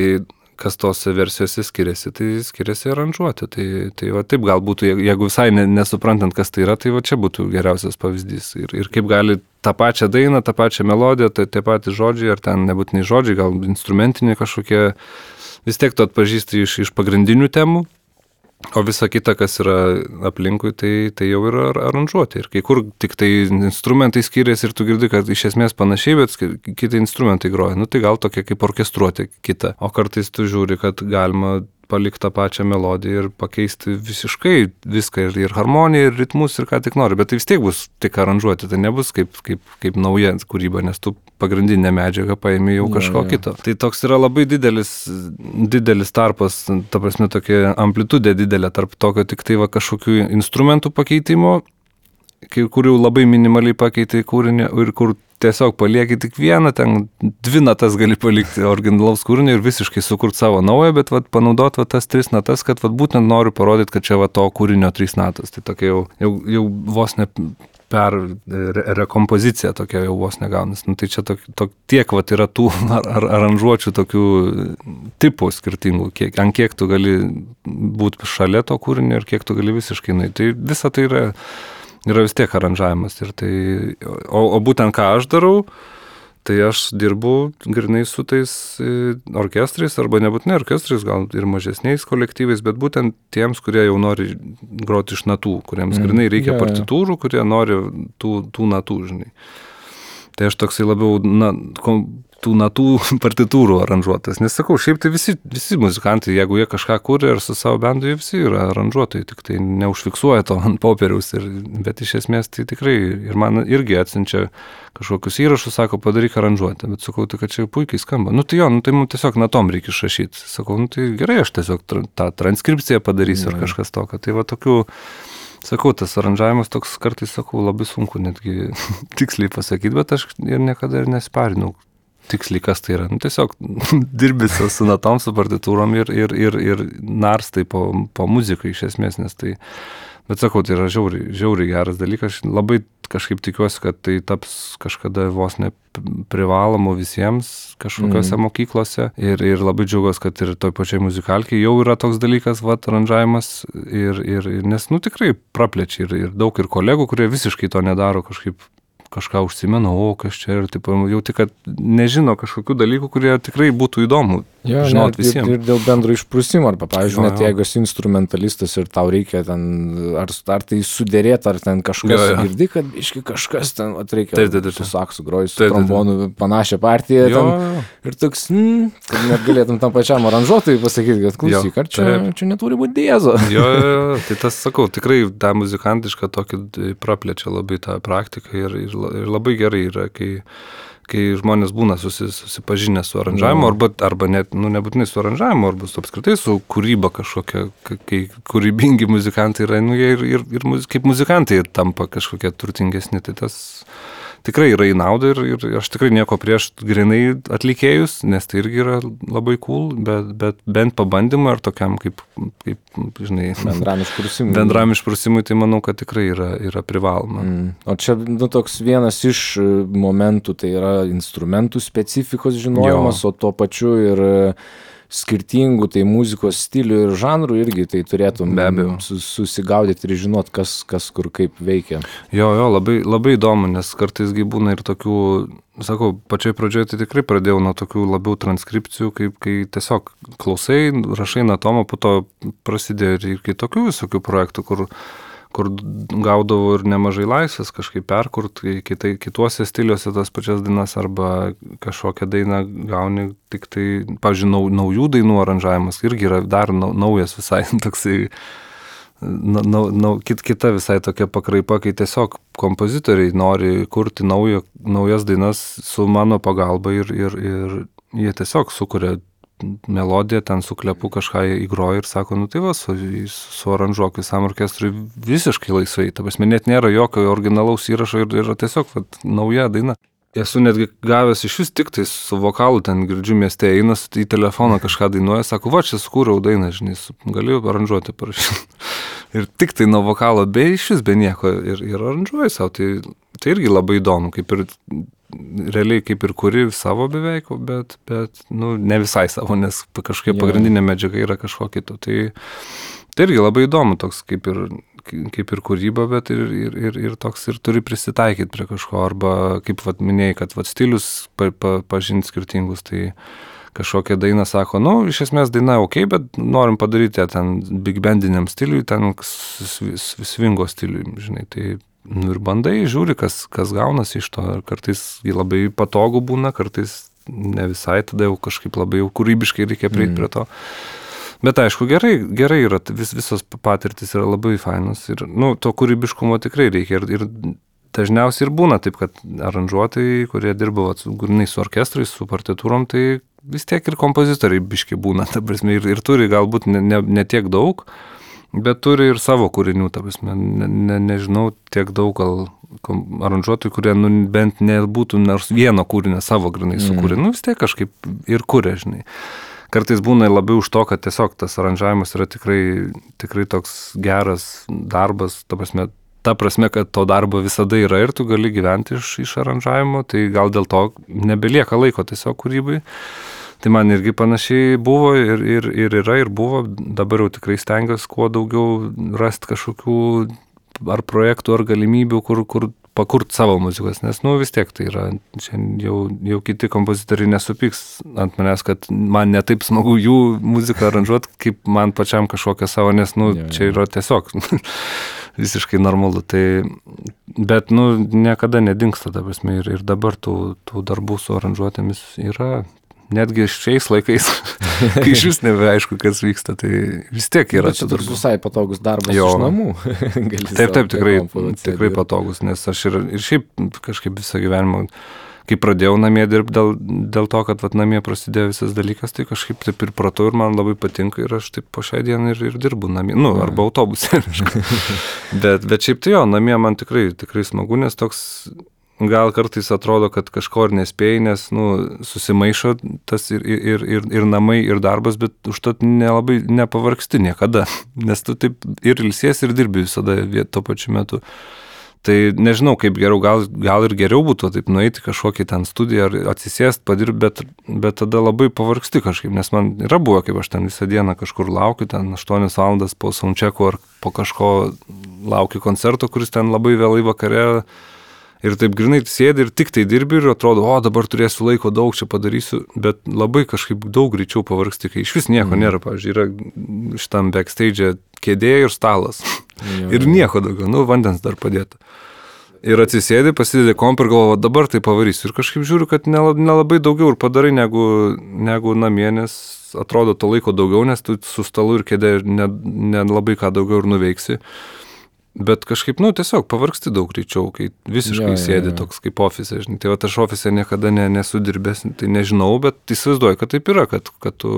kas tose versijose skiriasi, tai skiriasi aranžuoti. Tai va taip gal būtų, jeigu visai nesuprantant, kas tai yra, tai va čia būtų geriausias pavyzdys. Ir kaip gali tą pačią dainą, tą pačią melodiją, tie patys žodžiai, ar ten nebūtinai žodžiai, gal instrumentiniai kažkokie, vis tiek tu atpažįsti iš pagrindinių temų. O visa kita, kas yra aplinkui, tai jau yra aranžuoti. Ir kai kur tik tai instrumentai skiriasi ir tu girdi, kad iš esmės panašiai, bet kiti instrumentai groja. Tai gal tokia kaip orkestruotė kita. O kartais tu žiūri, kad galima palikti tą pačią melodiją ir pakeisti visiškai viską ir harmoniją, ir ritmus, ir ką tik nori. Bet tai vis tiek bus tik aranžuoti, tai nebus kaip nauja kūryba, nes tu pagrindinę medžiagą paėmė jau kažko kito. Tai toks yra labai didelis tarpas, ta prasme tokia amplitudė didelė tarp tokio tik tai va kažkokių instrumentų pakeitimo, kur jau labai minimaliai pakeitai kūrinį ir kur tiesiog palieki tik vieną, ten 2 natas gali palikti originalaus kūrinio ir visiškai sukurti savo naują, bet panaudoti tas 3 natas, kad būtent noriu parodyti, kad čia to kūrinio 3 natas. Tai tokia jau vos ne per rekompozicija tokia jau vos negaunas. Tai čia tiek yra tų aranžuočių tokių tipų skirtingų, ant kiek tu gali būti šalia to kūrinio ir kiek tu gali visiškai. Tai visa tai yra vis tiek aranžavimas. O būtent ką aš darau, tai aš dirbu grinai su tais orkestrais, arba nebūtinai orkestrais, gal ir mažesniais kolektyvais, bet būtent tiems, kurie jau nori groti iš natų, kuriems grinai reikia partitūrų, kurie nori tų natų, žinai. Tai aš toksai labiau tų natų partitūrų aranžuotas. Nes sakau, šiaip tai visi muzikantai, jeigu jie kažką kūrė ir su savo bendu, jie visi yra aranžuotojai, tik tai neužfiksuoja to ant popieriaus. Bet iš esmės tai tikrai, ir man irgi atsiunčia kažkokius įrašus, sako, padaryk aranžuotę. Bet sakau, tai kad čia puikiai skamba. Tai mums tiesiog natom reikia išrašyti. Sakau, tai gerai, aš tiesiog tą transkripciją padarysiu ar kažkas tokio. Tai va tokių... Sakau, tas aranžavimas toks kartais, sakau, labai sunku netgi tiksliai pasakyti, bet aš ir niekada ir nesiparinau tiksliai, kas tai yra. Tiesiog dirbi su natom, su partitūrom ir narstai po muziką iš esmės, nes tai... Bet sakau, tai yra žiauriai geras dalykas. Aš labai kažkaip tikiuosi, kad tai taps kažkada vos ne privalomu visiems kažkokiose mokyklose. Ir labai džiaugiuosi, kad ir toj pačiai muzikalkiai jau yra toks dalykas, aranžavimas. Nes tikrai praplečia ir daug ir kolegų, kurie visiškai to nedaro, kažką užsimena, kas čia ir taip, jau tik, kad nežino kažkokių dalykų, kurie tikrai būtų įdomu žinot visiems. Ir dėl bendro išprusimo, arba, pavyzdžiui, net jeigu esi instrumentalistas ir tau reikia ten, ar tai sudėrėti, ar ten kažkas girdi, kad iški kažkas ten reikia su saksu groji, su trombonu panašią partiją ten, ir toks, kad net galėtum tam pačiam aranžuotojui pasakyti, kad klausyk, ar čia neturi būti diezo. Jo, tai tas, sakau, tikrai tą muzikantišką tokį praplečia labai tą praktiką ir labai gerai yra, kai žmonės būna susipažinę su aranžavimu, arba net, nebūtinai su aranžavimu, arba apskritai su kūryba kažkokia, kai kūrybingi muzikantai yra, jie ir kaip muzikantai tampa kažkokie turtingesni, tai tas tikrai yra į naudą ir aš tikrai nieko prieš grinai atlikėjus, nes tai irgi yra labai cool, bet bent pabandymą ar tokiam kaip žinai, bendram išprusimui, tai manau, kad tikrai yra privaloma. O čia toks vienas iš momentų, tai yra instrumentų specifikos žinojimas, o tuo pačiu ir skirtingų tai muzikos stilių ir žanrų irgi tai turėtum susigaudyti ir žinot, kas kur kaip veikia. Jo, labai, labai įdomu, nes kartais būna ir tokių, sakau, pačioj pradžioje tai tikrai pradėjau nuo tokių labiau transkripcijų, kai tiesiog klausai, rašai natomą, po to prasidėjo ir kitokių visokių projektų, kur gaudavau ir nemažai laisvės kažkaip perkurt, kituose stiliuose tas pačias dainas arba kažkokią dainą gauni tik tai, pavyzdžiui, naujų dainų aranžavimas irgi yra dar naujas visai toksai, kita visai tokia pakraipa, kai tiesiog kompozitoriai nori kurti naujas dainas su mano pagalba ir jie tiesiog sukuria melodiją, ten su klepu kažką įgroja ir sako, tai va, su aranžuok visam orkestrui visiškai laisvai. Ta prasme, net nėra jokio originalaus įrašo ir yra tiesiog nauja daina. Esu netgi gavęs iš vis tik tai su vokalu, ten girdžiu mieste, einas į telefoną kažką dainuoja, sako, va, čia sukūriau dainą, žinai, galiu aranžuoti parašyti. Ir tik tai nuo vokalo, be iš vis, be nieko ir aranžuoju savo. Tai irgi labai įdomu, realiai kaip ir kuri savo beveik, bet ne visai savo, nes kažkokia pagrindinė medžiaga yra kažko kito. Tai irgi labai įdomu, toks kaip ir kūryba, bet ir toks ir turi prisitaikyti prie kažko, arba kaip minėjai, kad stilius pažinti skirtingus, tai kažkokią dainą sako, iš esmės daina ok, bet norim padaryti ten big bandiniam stiliui, ten swingo stiliui, žinai, tai ir bandai, žiūri, kas gaunasi iš to, kartais labai patogu būna, kartais ne visai, tada jau kažkaip labai jau kūrybiškai reikia prieiti prie to. Bet aišku, gerai yra, visos patirtis yra labai fainos ir, to kūrybiškumo tikrai reikia ir dažniausiai ir būna taip, kad aranžuotojai, kurie dirba grynai su orkestrais, su partitūrom, tai vis tiek ir kompozitoriai biški būna, ta prasme, ir turi galbūt ne tiek daug, bet turi ir savo kūrinių, ta prasme, nežinau, tiek daug gal aranžuotojų, kurie bent nebūtų nors vieno kūrinio savo grynai sukūrė, vis tiek kažkaip ir kūrė, žinai. Kartais būna labiau už to, kad tiesiog tas aranžavimas yra tikrai toks geras darbas, ta prasme, kad to darbo visada yra ir tu gali gyventi iš aranžavimo, tai gal dėl to nebelieka laiko tiesiog kūrybai. Tai man irgi panašiai buvo ir yra ir buvo, dabar jau tikrai stengiuosi kuo daugiau rasti kažkokių ar projektų, ar galimybių, kur pakurt savo muzikos, nes vis tiek tai yra, jau kiti kompozitoriai nesupyks ant manęs, kad man netaip smagu jų muziką aranžuoti, kaip man pačiam kažkokią savo, nes čia yra tiesiog visiškai normalu, tai, bet niekada nedingsta, ta prasme, ir dabar tų darbų su aranžuotėmis yra. Netgi šiais laikais, kai iš vis nebeaišku, kas vyksta, tai vis tiek yra. Bet čia toks visai patogus darbas iš namų. Taip, tikrai patogus, nes aš ir šiaip kažkaip visą gyvenimą, kai pradėjau namie dirbti dėl to, kad namie prasidėjo visas dalykas, tai kažkaip taip ir pratau ir man labai patinka ir aš taip po šią dieną ir dirbu namie, arba autobuse. bet šiaip tai namie man tikrai smagu, nes toks gal kartais atrodo, kad kažko ir nespėjai, nes susimaišo tas ir namai, ir darbas, bet užtat nelabai nepavargsti niekada, nes tu taip ir ilsies, ir dirbi visada tuo pačiu metu. Tai nežinau, kaip geriau, gal ir geriau būtų taip nueiti kažkokį ten studiją ar atsisėst, padirbti, bet tada labai pavargsti kažkaip, nes man yra buvo, kaip aš ten visą dieną kažkur laukiu, ten 8 valandas po soundchecko ar po kažko laukiu koncerto, kuris ten labai vėlai vakare. Ir taip grinai sėdi ir tik tai dirbi ir atrodo, o dabar turėsiu laiko daug čia padarysiu, bet labai kažkaip daug greičiau pavargsti, kai iš vis nieko nėra, pavyzdžiui, yra šitam backstage kėdė ir stalas. Ir nieko daugiau, vandens dar padėta. Ir atsisėdi, pasidedi kompą ir galvoju, dabar tai pavarysiu. Ir kažkaip žiūriu, kad nelabai daugiau ir padarai negu namie, nes atrodo to laiko daugiau, nes tu su stalu ir kėdė nelabai ką daugiau ir nuveiksi. Bet kažkaip, tiesiog pavargsti daug greičiau, kai visiškai sėdi toks kaip ofise, žinai. Tai aš ofise niekada nesu dirbęs, tai nežinau, bet įsivaizduoju, kad taip yra, kad tu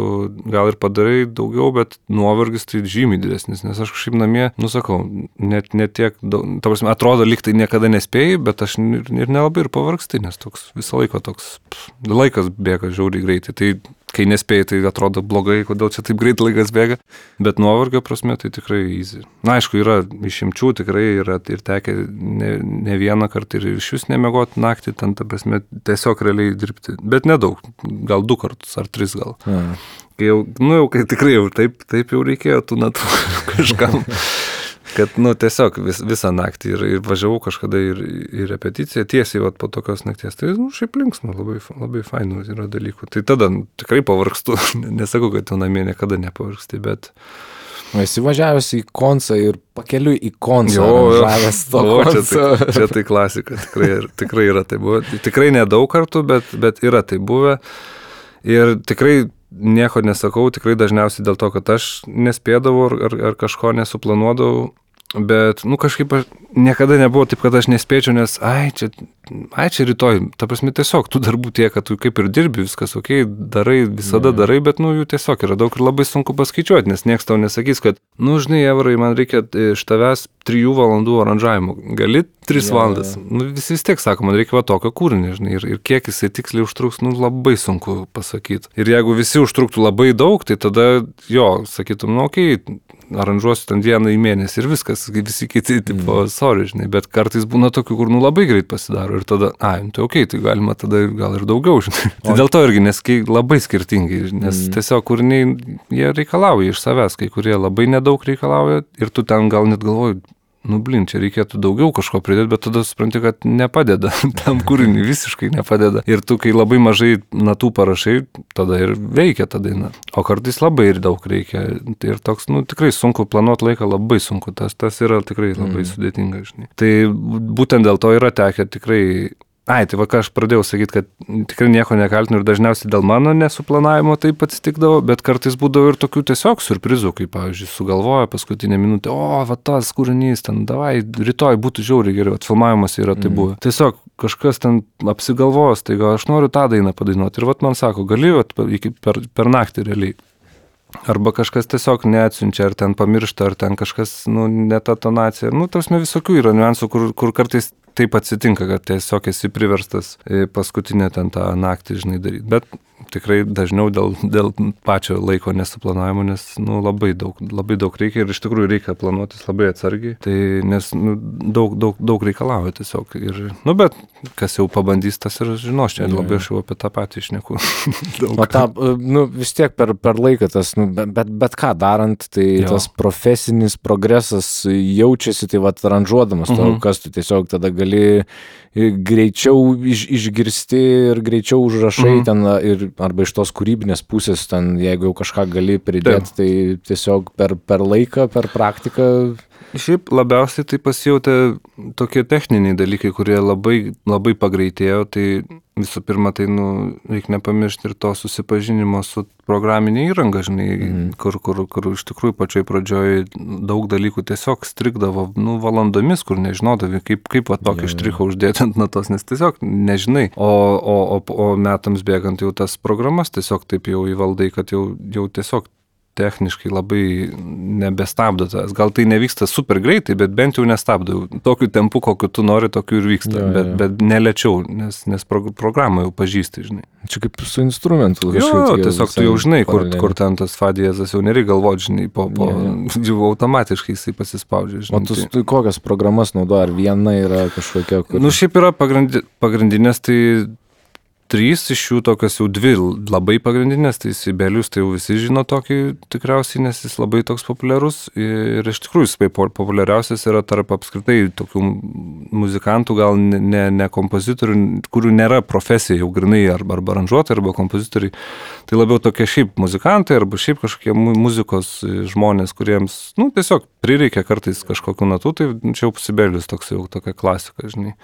gal ir padarai daugiau, bet nuovargis tai žymiai didesnis, nes aš kažkaip namie, sakau, net tiek, ta prasme, atrodo, lyg tai niekada nespėjai, bet aš ir nelabai ir pavargsti, nes toks visą laiką toks, laikas bėga žiauriai greitai, tai kai nespėjai, tai atrodo blogai, kodėl čia taip greit laikas bėga, bet nuovargio prasme tai tikrai easy. Na, aišku, yra išimčių, tikrai yra ir tekę ne vieną kartą ir iš vis nemiegoti naktį, ten, ta prasme, tiesiog realiai dirbti, bet nedaug, gal 2 kartus ar 3 gal. Kai kai tikrai jau taip jau reikėjo tų natų kažkam. Kad, tiesiog visą naktį ir važiavau kažkada į repeticiją, tiesiai po tokios nakties. Tai, šiaip linksma, labai fainų yra dalykų. Tai tada tikrai pavargstu, nesakau, kad tu namie niekada nepavargsti, bet... Esi važiavęs į koncą ir pakeliui į koncą. Žavęs to konco. Čia tai klasika, tikrai yra tai buvę. Tikrai nedaug kartų, bet yra tai buvę. Ir tikrai nieko nesakau, tikrai dažniausiai dėl to, kad aš nespėdavau ar kažko nesuplanuodavau. Bet, kažkaip niekada nebuvo taip, kad aš nespėčiau, nes, čia rytoj, ta prasme, tiesiog tų darbų tiek, kad tu kaip ir dirbi, viskas okei, darai, visada darai, bet, jų tiesiog yra daug ir labai sunku paskaičiuoti, nes niekas tau nesakys, kad, žinai, Evrai, man reikia iš tavęs 3 valandų aranžavimo, gali 3 valandas, visi vis tiek sako, man reikia tokio kūrinio, žinai, ir kiek jisai tiksliai užtruks, labai sunku pasakyti. Ir jeigu visi užtruktų labai daug, tai tada, sakytum, okei, aranžuosiu ten 1 mėnesį ir viskas, visi kiti, tipo, sorry, žinai, bet kartais būna tokių, kur labai greit pasidaro ir tada, tai okei, tai galima tada gal ir daugiau, žinai. Tai dėl to irgi, nes labai skirtingai, nes tiesiog kūriniai, jie reikalauja iš savęs, kai kurie labai nedaug reikalauja ir tu ten gal net galvoji, čia reikėtų daugiau kažko pridėti, bet tada supranti, kad nepadeda, tam kūriniui visiškai nepadeda. Ir tu, kai labai mažai natų parašai, tada ir veikia ta daina. O kartais labai ir daug reikia. Ir toks, tikrai sunku planuoti laiką, labai sunku. Tas yra tikrai labai sudėtinga, žinai. Tai būtent dėl to yra tekę tikrai... Tai ką aš pradėjau sakyti, kad tikrai nieko nekaltinu ir dažniausiai dėl mano nesuplanavimo taip atsitikdavo, bet kartais būdavo ir tokių tiesiog surprizų, kaip, pavyzdžiui, sugalvoja paskutinę minutę, tas kūrinys, ten, davai, rytoj būtų žiauriai geriau, filmavimas yra tai buvo. Tiesiog kažkas ten apsigalvos, tai gal aš noriu tą dainą padainuoti ir man sako, gali per naktį realiai. Arba kažkas tiesiog neatsiunčia, ar ten pamiršta, ar ten kažkas, ne ta tonacija. Tarsi visokių yra niuansų, kur kartais taip atsitinka, kad tiesiog esi priverstas paskutinę ten tą naktį, žinai, daryti. Bet tikrai dažniau dėl pačio laiko nesuplanavimo, nes labai daug reikia ir iš tikrųjų reikia planuotis labai atsargiai, tai nes daug reikalauja tiesiog. Ir, bet kas jau pabandys, tas ir žinos, čia labai aš jau apie tą patį šneku. Vis tiek per laiką tas, bet ką darant, tai tas profesinis progresas jaučiasi, tai aranžuodamas to, kas tu tiesiog tada gali greičiau išgirsti ir greičiau užrašai ten ir arba iš tos kūrybinės pusės, ten, jeigu jau kažką gali pridėti, tai tiesiog per laiką, per praktiką. Šiaip labiausiai tai pasijautė tokie techniniai dalykai, kurie labai pagreitėjo, tai visų pirma, tai reikia nepamiršti ir to susipažinimo su programinė įranga, žinai, kur iš tikrųjų pačioj pradžioj daug dalykų tiesiog strigdavo valandomis, kur nežinodavai, kaip tokį štrichą uždėti ant natos, nes tiesiog nežinai. O metams bėgant jau tas programas tiesiog taip jau įvaldai, kad jau tiesiog techniškai labai nebestabdo tas. Gal tai nevyksta super greitai, bet bent jau nestabdo. Tokiu tempu, kokiu tu nori, tokiu ir vyksta. Bet nelėčiau, nes programą jau pažįsti, žinai. Čia kaip su instrumentu. Tiesiog tu jau žinai, kur ten tas fa diezas, jau nereikia galvoti, žinai, jau automatiškai jisai pasispaudžia, žinai. O tu kokias programas naudoji? Ar viena yra kažkokia? Šiaip yra pagrindinės, tai 3 iš jų tokios jau 2 labai pagrindinės, tai Sibelius tai jau visi žino tokį tikriausiai, nes jis labai toks populiarus ir iš tikrųjų jis populiariausias yra tarp apskritai tokių muzikantų, gal ne kompozitorių, kurių nėra profesija jau grinai arba aranžuotojai, arba kompozitoriai, tai labiau tokie šiaip muzikantai arba šiaip kažkokie muzikos žmonės, kuriems, tiesiog prireikia kartais kažkokių natų, tai čia jau Sibelius toks jau tokia klasika, žinai.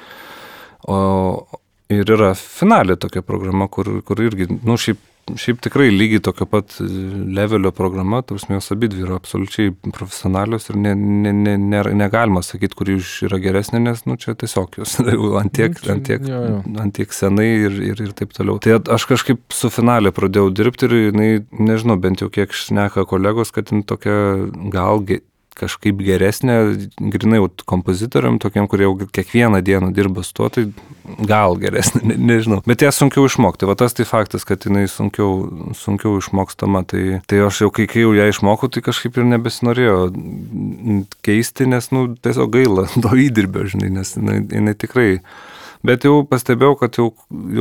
Ir yra finalė tokia programa, kur irgi, šiaip tikrai lygiai tokio pat levelio programa, tarsi jos abidvi yra absoliučiai profesionalios ir negalima sakyti, kuri yra geresnė, nes čia tiesiog jos antiek senai ir taip toliau. Tai aš kažkaip su finalė pradėjau dirbti ir nežinau, bent jau kiek šneka kolegos, kad tokia gal kažkaip geresnė, grinai kompozitoriam, tokiem, kurie jau kiekvieną dieną dirba su tuo, tai gal geresnė, nežinau. Bet ją sunkiau išmokti. Va tas tai faktas, kad jinai sunkiau išmokstama. Tai aš jau, kai jau ją išmokau, tai kažkaip ir nebesinorėjo keisti, nes, tiesiog gaila to įdirbio, žinai, nes jinai tikrai. Bet jau pastebėjau, kad jau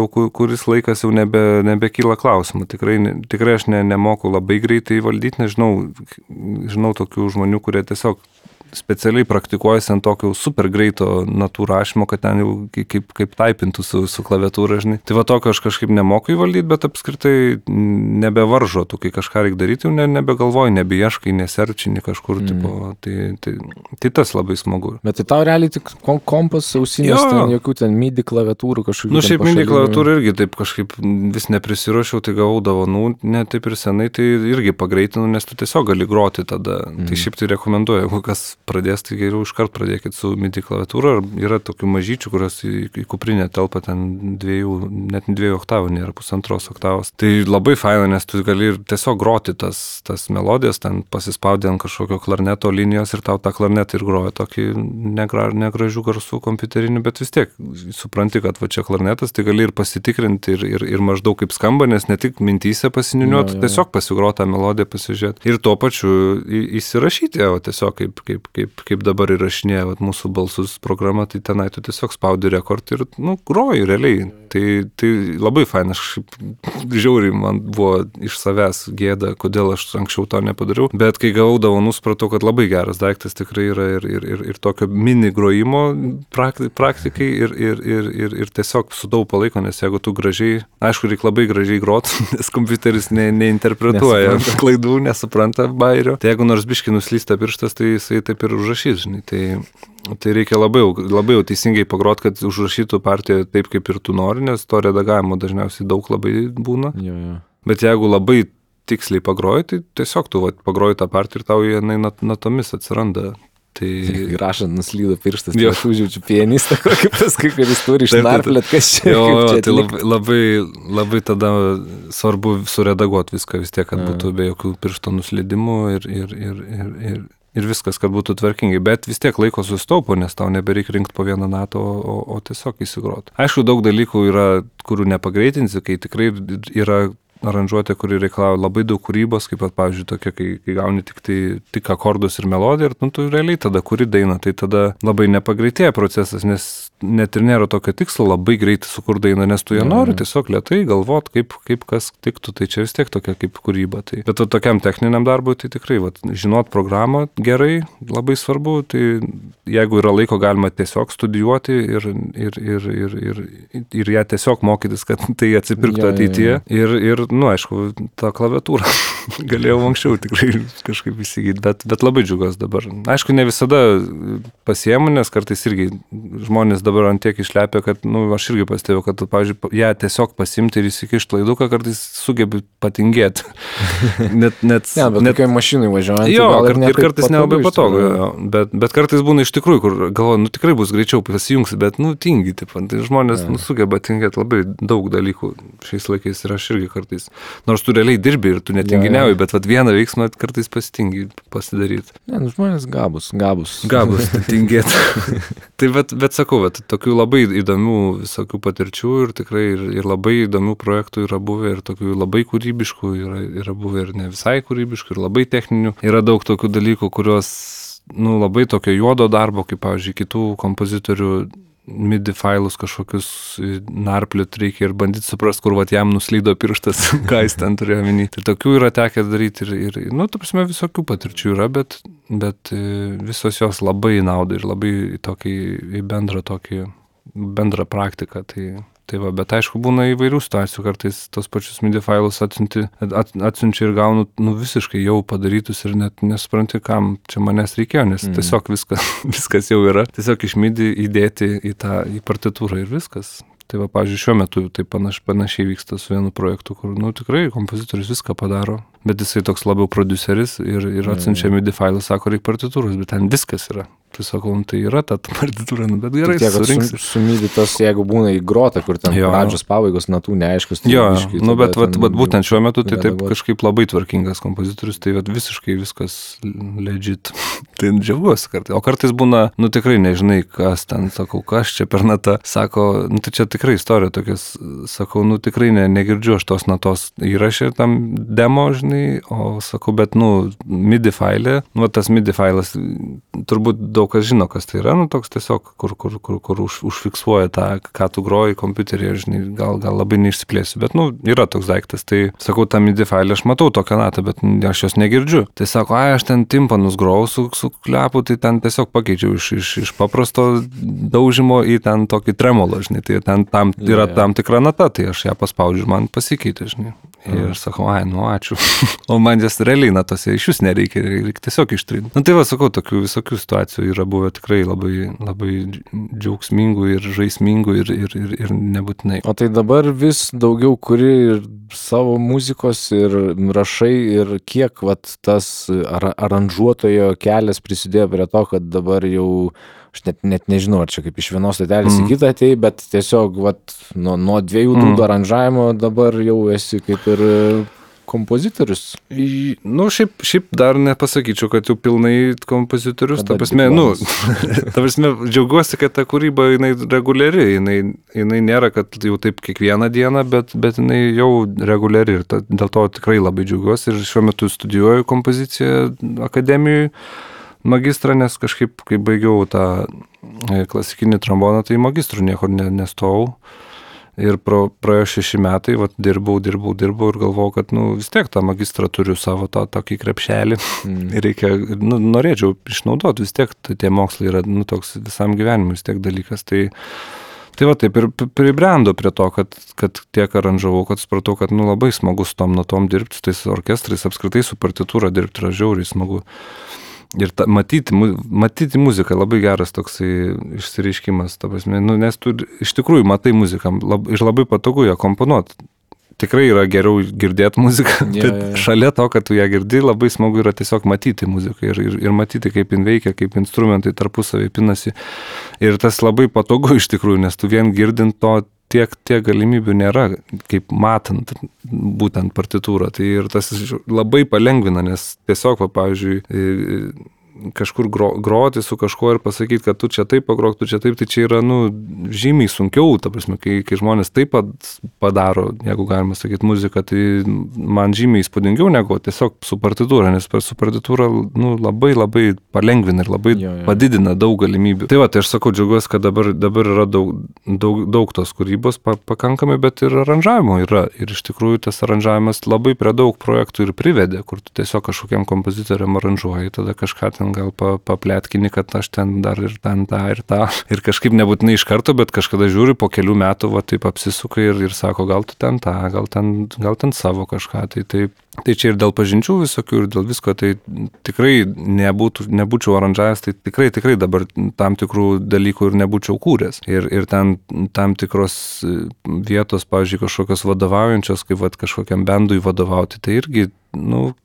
kuris laikas jau nebekyla klausimų. Tikrai aš nemoku labai greitai valdyti, žinau tokių žmonių, kurie tiesiog specialiai praktikuojasi ant tokio super greito natų rašymo, kad ten jau kaip taipintų su klaviatūra, žinai. Tai va tokio aš kažkaip nemoku įvaldyti, bet apskritai nebevaržo, tu kai kažką reikia daryti, jau nebegalvoji, nebeieškai, neserčini kažkur, tai tas labai smagu. Bet tai tau realiai tik kompas, ausinės, jokių ten MIDI klaviatūrų kažkokių. Šiaip MIDI klaviatūrų irgi taip kažkaip vis neprisiruošiau, tai gavau dovanų, ne taip ir senai, tai irgi pagreitinu, nes tu tiesiog gali groti tada. Tai šiaip tai rekomenduoju, jeigu kas pradės, tai geriau iškart pradėkit su MIDI klaviatūra. Yra tokių mažyčių, kurios į kuprinę telpa ten net 2 oktavų, nėra 1,5 oktavos. Tai labai faina, nes tu gali ir tiesiog groti tas melodijas, ten pasispaudė ant kažkokio klarneto linijos ir tau tą klarnetą ir groja tokį negražių garsų kompiuterinį, bet vis tiek supranti, kad va čia klarnetas, tai gali ir pasitikrinti ir maždaug kaip skamba, nes ne tik mintyse pasininiuoti, tiesiog pasigroti tą melodiją, pasižiūrėti. Ir tuo pačiu įsirašyti, tiesiog kaip dabar įrašinėja mūsų balsus programa, tai tenai tu tiesiog spaudi rekord ir, groji realiai. Tai labai faina, aš žiauriai man buvo iš savęs gėda, kodėl aš anksčiau to nepadariau, bet kai gavau dovanų, supratau, kad labai geras daiktas tikrai yra ir tokio mini grojimo praktikai ir tiesiog sutaupo laiko, nes jeigu tu gražiai, aišku, reikia labai gražiai grot, nes kompiuteris neinterpretuoja klaidų, nesupranta bairio. Tai jeigu nors biškį nuslysta pirštas, tai jisai taip ir užrašys, žinai. Tai reikia labai jau teisingai pagrot, kad užrašytų partiją taip, kaip ir tu nori, nes to redagavimo dažniausiai daug labai būna. Bet jeigu labai tiksliai pagroji, tai tiesiog tu pagroji tą partiją ir tau jinai natomis atsiranda. Tai rašant nuslydo pirštas, tai aš užjaučiu pianistą, kokį paskui, kuris turi išnarplėt, kas čia. Tai labai tada svarbu suredaguoti viską vis tiek, kad būtų be jokių piršto nuslydimų ir viskas, kad būtų tvarkingai. Bet vis tiek laiko sustaupo, nes tau nebereikia rinkti po vieną natą, o tiesiog įsigroti. Aišku, daug dalykų yra, kurių nepagreitinsi, kai tikrai yra aranžuotė, kuri reikalauja labai daug kūrybos, kaip pat, pavyzdžiui, tokia, kai gauni tik akordus ir melodiją ir tu realiai tada kuri dainą, tai tada labai nepagreitėja procesas, nes net ir nėra tokio tikslo labai greitai sukurti dainą, nes tu ją nori tiesiog lėtai galvot, kaip kas tiktų, tai čia vis tiek tokia kaip kūryba. Bet tokiam techniniam darbui, tai tikrai, žinot programą gerai, labai svarbu, tai jeigu yra laiko, galima tiesiog studijuoti ir ją tiesiog mokytis, kad tai atsipirktų ateityje. Ir aišku, tą klaviatūrą galėjau anksčiau tikrai kažkaip įsigyti, bet labai džiugas dabar. Aišku, ne visada pasiemu, nes kartais irgi žmonės dabar ant tiek išlepia, kad, aš irgi pastebėjau, kad, pavyzdžiui, ją tiesiog pasimti ir įsikišti laiduką, kartais sugebi patingėti. Bet kokiai mašinai važiuojant. Ir kartais nelabai patogu. Bet kartais būna iš tikrųjų, kur galvoju, tikrai bus greičiau pasijungsi, bet, tingi, tai žmonės sugeba tingėti labai daug dalykų šiais laikais ir aš irgi kartais. Nors tu realiai dirbi ir tu netinginiauji, bet vieną veiksmą kartais pasitingi pasidaryti. Žmonės gabus. Gabus, tingėti. Tai bet sakau, tokių labai įdomių visokių patirčių ir tikrai ir labai įdomių projektų yra buvę ir tokių labai kūrybiškų yra buvę ir ne visai kūrybiškų ir labai techninių. Yra daug tokių dalykų, kurios, labai tokio juodo darbo, kaip, pavyzdžiui, kitų kompozitorių MIDI failus kažkokius narpliut reikia ir bandyti suprasti, kur vat jam nuslydo pirštas, ką jis ten turėjo minį. Tai tokių yra tekę daryti ir nu, ta prasme, visokių patirčių yra, bet visos jos labai naudai ir labai į bendrą praktiką. Tai va, bet aišku, būna įvairių situacijų, kartais tos pačius MIDI failus atsiunčia ir gaunu visiškai jau padarytus ir net nesupranti, kam čia manęs reikėjo, nes tiesiog viskas jau yra. Tiesiog iš MIDI įdėti į partitūrą ir viskas. Tai va, pavyzdžiui, šiuo metu tai panašiai vyksta su vienu projektu, kur, tikrai kompozitorius viską padaro, bet jisai toks labiau produceris ir atsiunčia MIDI failus, sako, reikia partitūros, bet ten viskas yra. Tai sakau, tai yra ta partitūra, bet gerai, surinksi. Su MIDI tas, jeigu būna įgrota, kur ten pradžios pabaigos natų neaiškus. Tai bet būtent šiuo metu tai taip kažkaip labai tvarkingas kompozitorius, tai visiškai viskas legit. Tai džiaugiuosi kartais. O kartais būna, tikrai nežinai, kas ten, sakau, kas čia per natą. Sako, tai čia tikrai istorija tokias, sakau, tikrai negirdžiu aš tos natos įrašė tam demo, žinai, o sakau, bet, MIDI failė, tas MIDI failas, turbūt daug kas žino, kas tai yra, toks tiesiog, kur užfiksuoja tą, ką tu groji kompiuterį, žinai, gal labai neišsiplėsiu, bet, yra toks daiktas, tai sakau, tą MIDI failę aš matau tokią natą, bet aš jos negirdžiu. Tai sako, aš ten timpanus grojau su klepu, tai ten tiesiog pakeičiau iš paprasto daužimo į ten tokį tremolo, žinai, tai ten yra tam tikra nata, tai aš ją paspaudžiu ir man pasikeitė, žinai. Ir sakau, ačiū. O man jas realiai natose iš jūs nereikia tiesiog ištrinti. Tai va, sakau, tokių visokių situacijų yra buvę tikrai labai, labai džiaugsmingų ir žaismingų ir nebūtinai. O tai dabar vis daugiau kuri ir savo muzikos ir rašai ir kiek tas aranžuotojo kelias prisidėjo prie to, kad dabar jau aš net nežinau, ar čia kaip iš vienos stotelės į kitą atėjai, bet tiesiog nuo 2 dūdų aranžavimo dabar jau esi kaip ir kompozitorius. Šiaip dar nepasakyčiau, kad jau pilnai kompozitorius. Ta prasme, džiaugiuosi, kad ta kūryba jinai reguliari, jinai nėra, kad jau taip kiekvieną dieną, bet jinai jau reguliari ir dėl to tikrai labai džiaugiuosi ir šiuo metu studijuoju kompoziciją akademijoje. Magistrą, nes kažkaip, kai baigiau tą klasikinį tromboną, tai magistrų niekur nestojau. Ir praėjo 6 metai, dirbau ir galvojau, kad vis tiek tą magistrą turiu savo tokį krepšelį. Ir norėčiau išnaudoti, vis tiek tie mokslai yra toks visam gyvenimui vis tiek dalykas. Tai va taip ir pribrendo prie to, kad tiek aranžavau, kad supratau, kad labai smagu su tom natom dirbti, su tais orkestrais, apskritai su partitūra dirbti yra žiauriai smagu. Ir matyti muziką labai geras toksai išsireiškimas, ta prasme, nes tu iš tikrųjų matai muziką ir labai patogu ją komponuoti. Tikrai yra geriau girdėti muziką, bet šalia to, kad tu ją girdi, labai smagu yra tiesiog matyti muziką ir matyti, kaip jin veikia, kaip instrumentai tarpusavį pinasi. Ir tas labai patogu iš tikrųjų, nes tu vien girdint to tiek galimybių nėra, kaip matant būtent partitūrą. Tai ir tas labai palengvina, nes tiesiog, pavyzdžiui, kažkur groti su kažkuo ir pasakyti, kad tu čia taip pagrok, tu čia taip, tai čia yra, žymiai sunkiau, ta prasme, kai žmonės taip padaro, jeigu galima sakyti, muziką, tai man žymiai įspūdingiau negu tiesiog su partitūra, nes su partitūra, labai labai palengvina ir labai padidina daug galimybių. Tai va, tai aš sakau, džiaugiuosi, kad dabar yra daug tos kūrybos pakankamai, bet ir aranžavimo yra. Ir iš tikrųjų tas aranžavimas labai prie daug projektų ir privedė, kur tu tiesiog kažkokiam kompozitoriam aranžuoji, tada kažką ten gal papletkini, kad aš ten dar ir ten tą ir tą. Ir kažkaip nebūtinai iš karto, bet kažkada žiūri po kelių metų, taip apsisuka ir sako, gal tu ten tą, gal ten savo kažką. Tai čia ir dėl pažinčių visokių, ir dėl visko, tai tikrai nebūčiau aranžavęs, tai tikrai dabar tam tikrų dalykų ir nebūčiau kūręs. Ir ten tam tikros vietos, pavyzdžiui, kažkokios vadovaujančios, kaip kažkokiam bendui vadovauti, tai irgi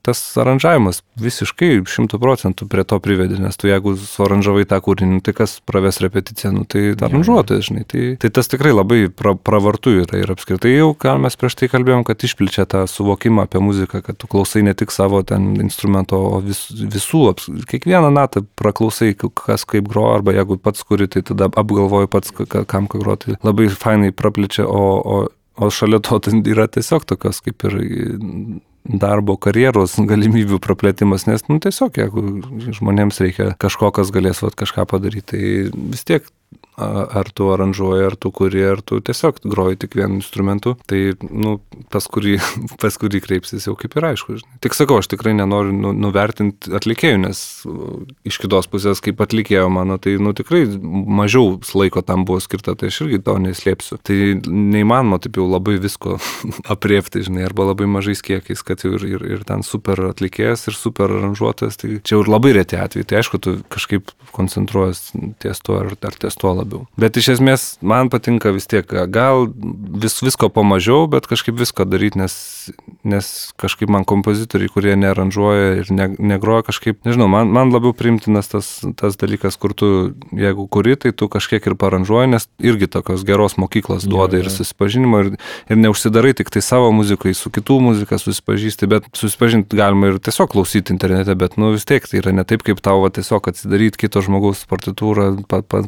tas aranžavimas visiškai 100% prie to privedė, nes tu jeigu suaranžavai tą kūrinį, tai kas praves repeticiją, tai aranžuotojas, žinai. Tai tas tikrai labai pravartu yra ir apskritai jau, ką mes prieš tai kalbėjom, kad išplečia tą suvokimą apie muziką, kad tu klausai ne tik savo ten instrumento, o visų, kiekvieną natą praklausai, kas kaip groja, arba jeigu pats kuri, tai tada apgalvoji pats, kam ką groti. Labai fainai praplečia, o šalia to yra tiesiog tokios kaip ir darbo, karjeros galimybių praplėtimas, nes tiesiog, jeigu žmonėms reikia kažko, kas galės kažką padaryti, tai vis tiek ar tu aranžuoji, ar tu kuri, ar tu tiesiog groji tik vienu instrumentu, tai, pas kurį kreipsis jau kaip ir aišku. Žinai. Tik sakau, aš tikrai nenoriu nuvertinti atlikėjų, nes iš kitos pusės, kaip atlikėjo mano, tai, tikrai mažiau laiko tam buvo skirta, tai aš irgi to neslėpsiu. Tai neįmanoma taip jau labai visko apriepti, žinai, arba labai mažais kiekiais, kad jau ir ten super atlikėjas, ir super aranžuotojas, tai čia jau ir labai reti atvejai, tai aišku, tu kažkaip koncentruojas ties tuo ar ties tuo labiau. Bet iš esmės man patinka vis tiek, gal visko pamažiau, bet kažkaip visko daryti, nes kažkaip man kompozitoriai, kurie nearanžuoja ir negroja kažkaip, nežinau, man labiau priimtinas tas dalykas, kur tu, jeigu kuri, tai tu kažkiek ir paranžuoji, nes irgi tokios geros mokyklos duoda ir susipažinimo ir neužsidarai tik tai savo muzikai, su kitų muzika susipažįsti, bet susipažinti galima ir tiesiog klausyti internete, bet vis tiek tai yra ne taip, kaip tau tiesiog atsidaryti kito žmogaus partitūrą,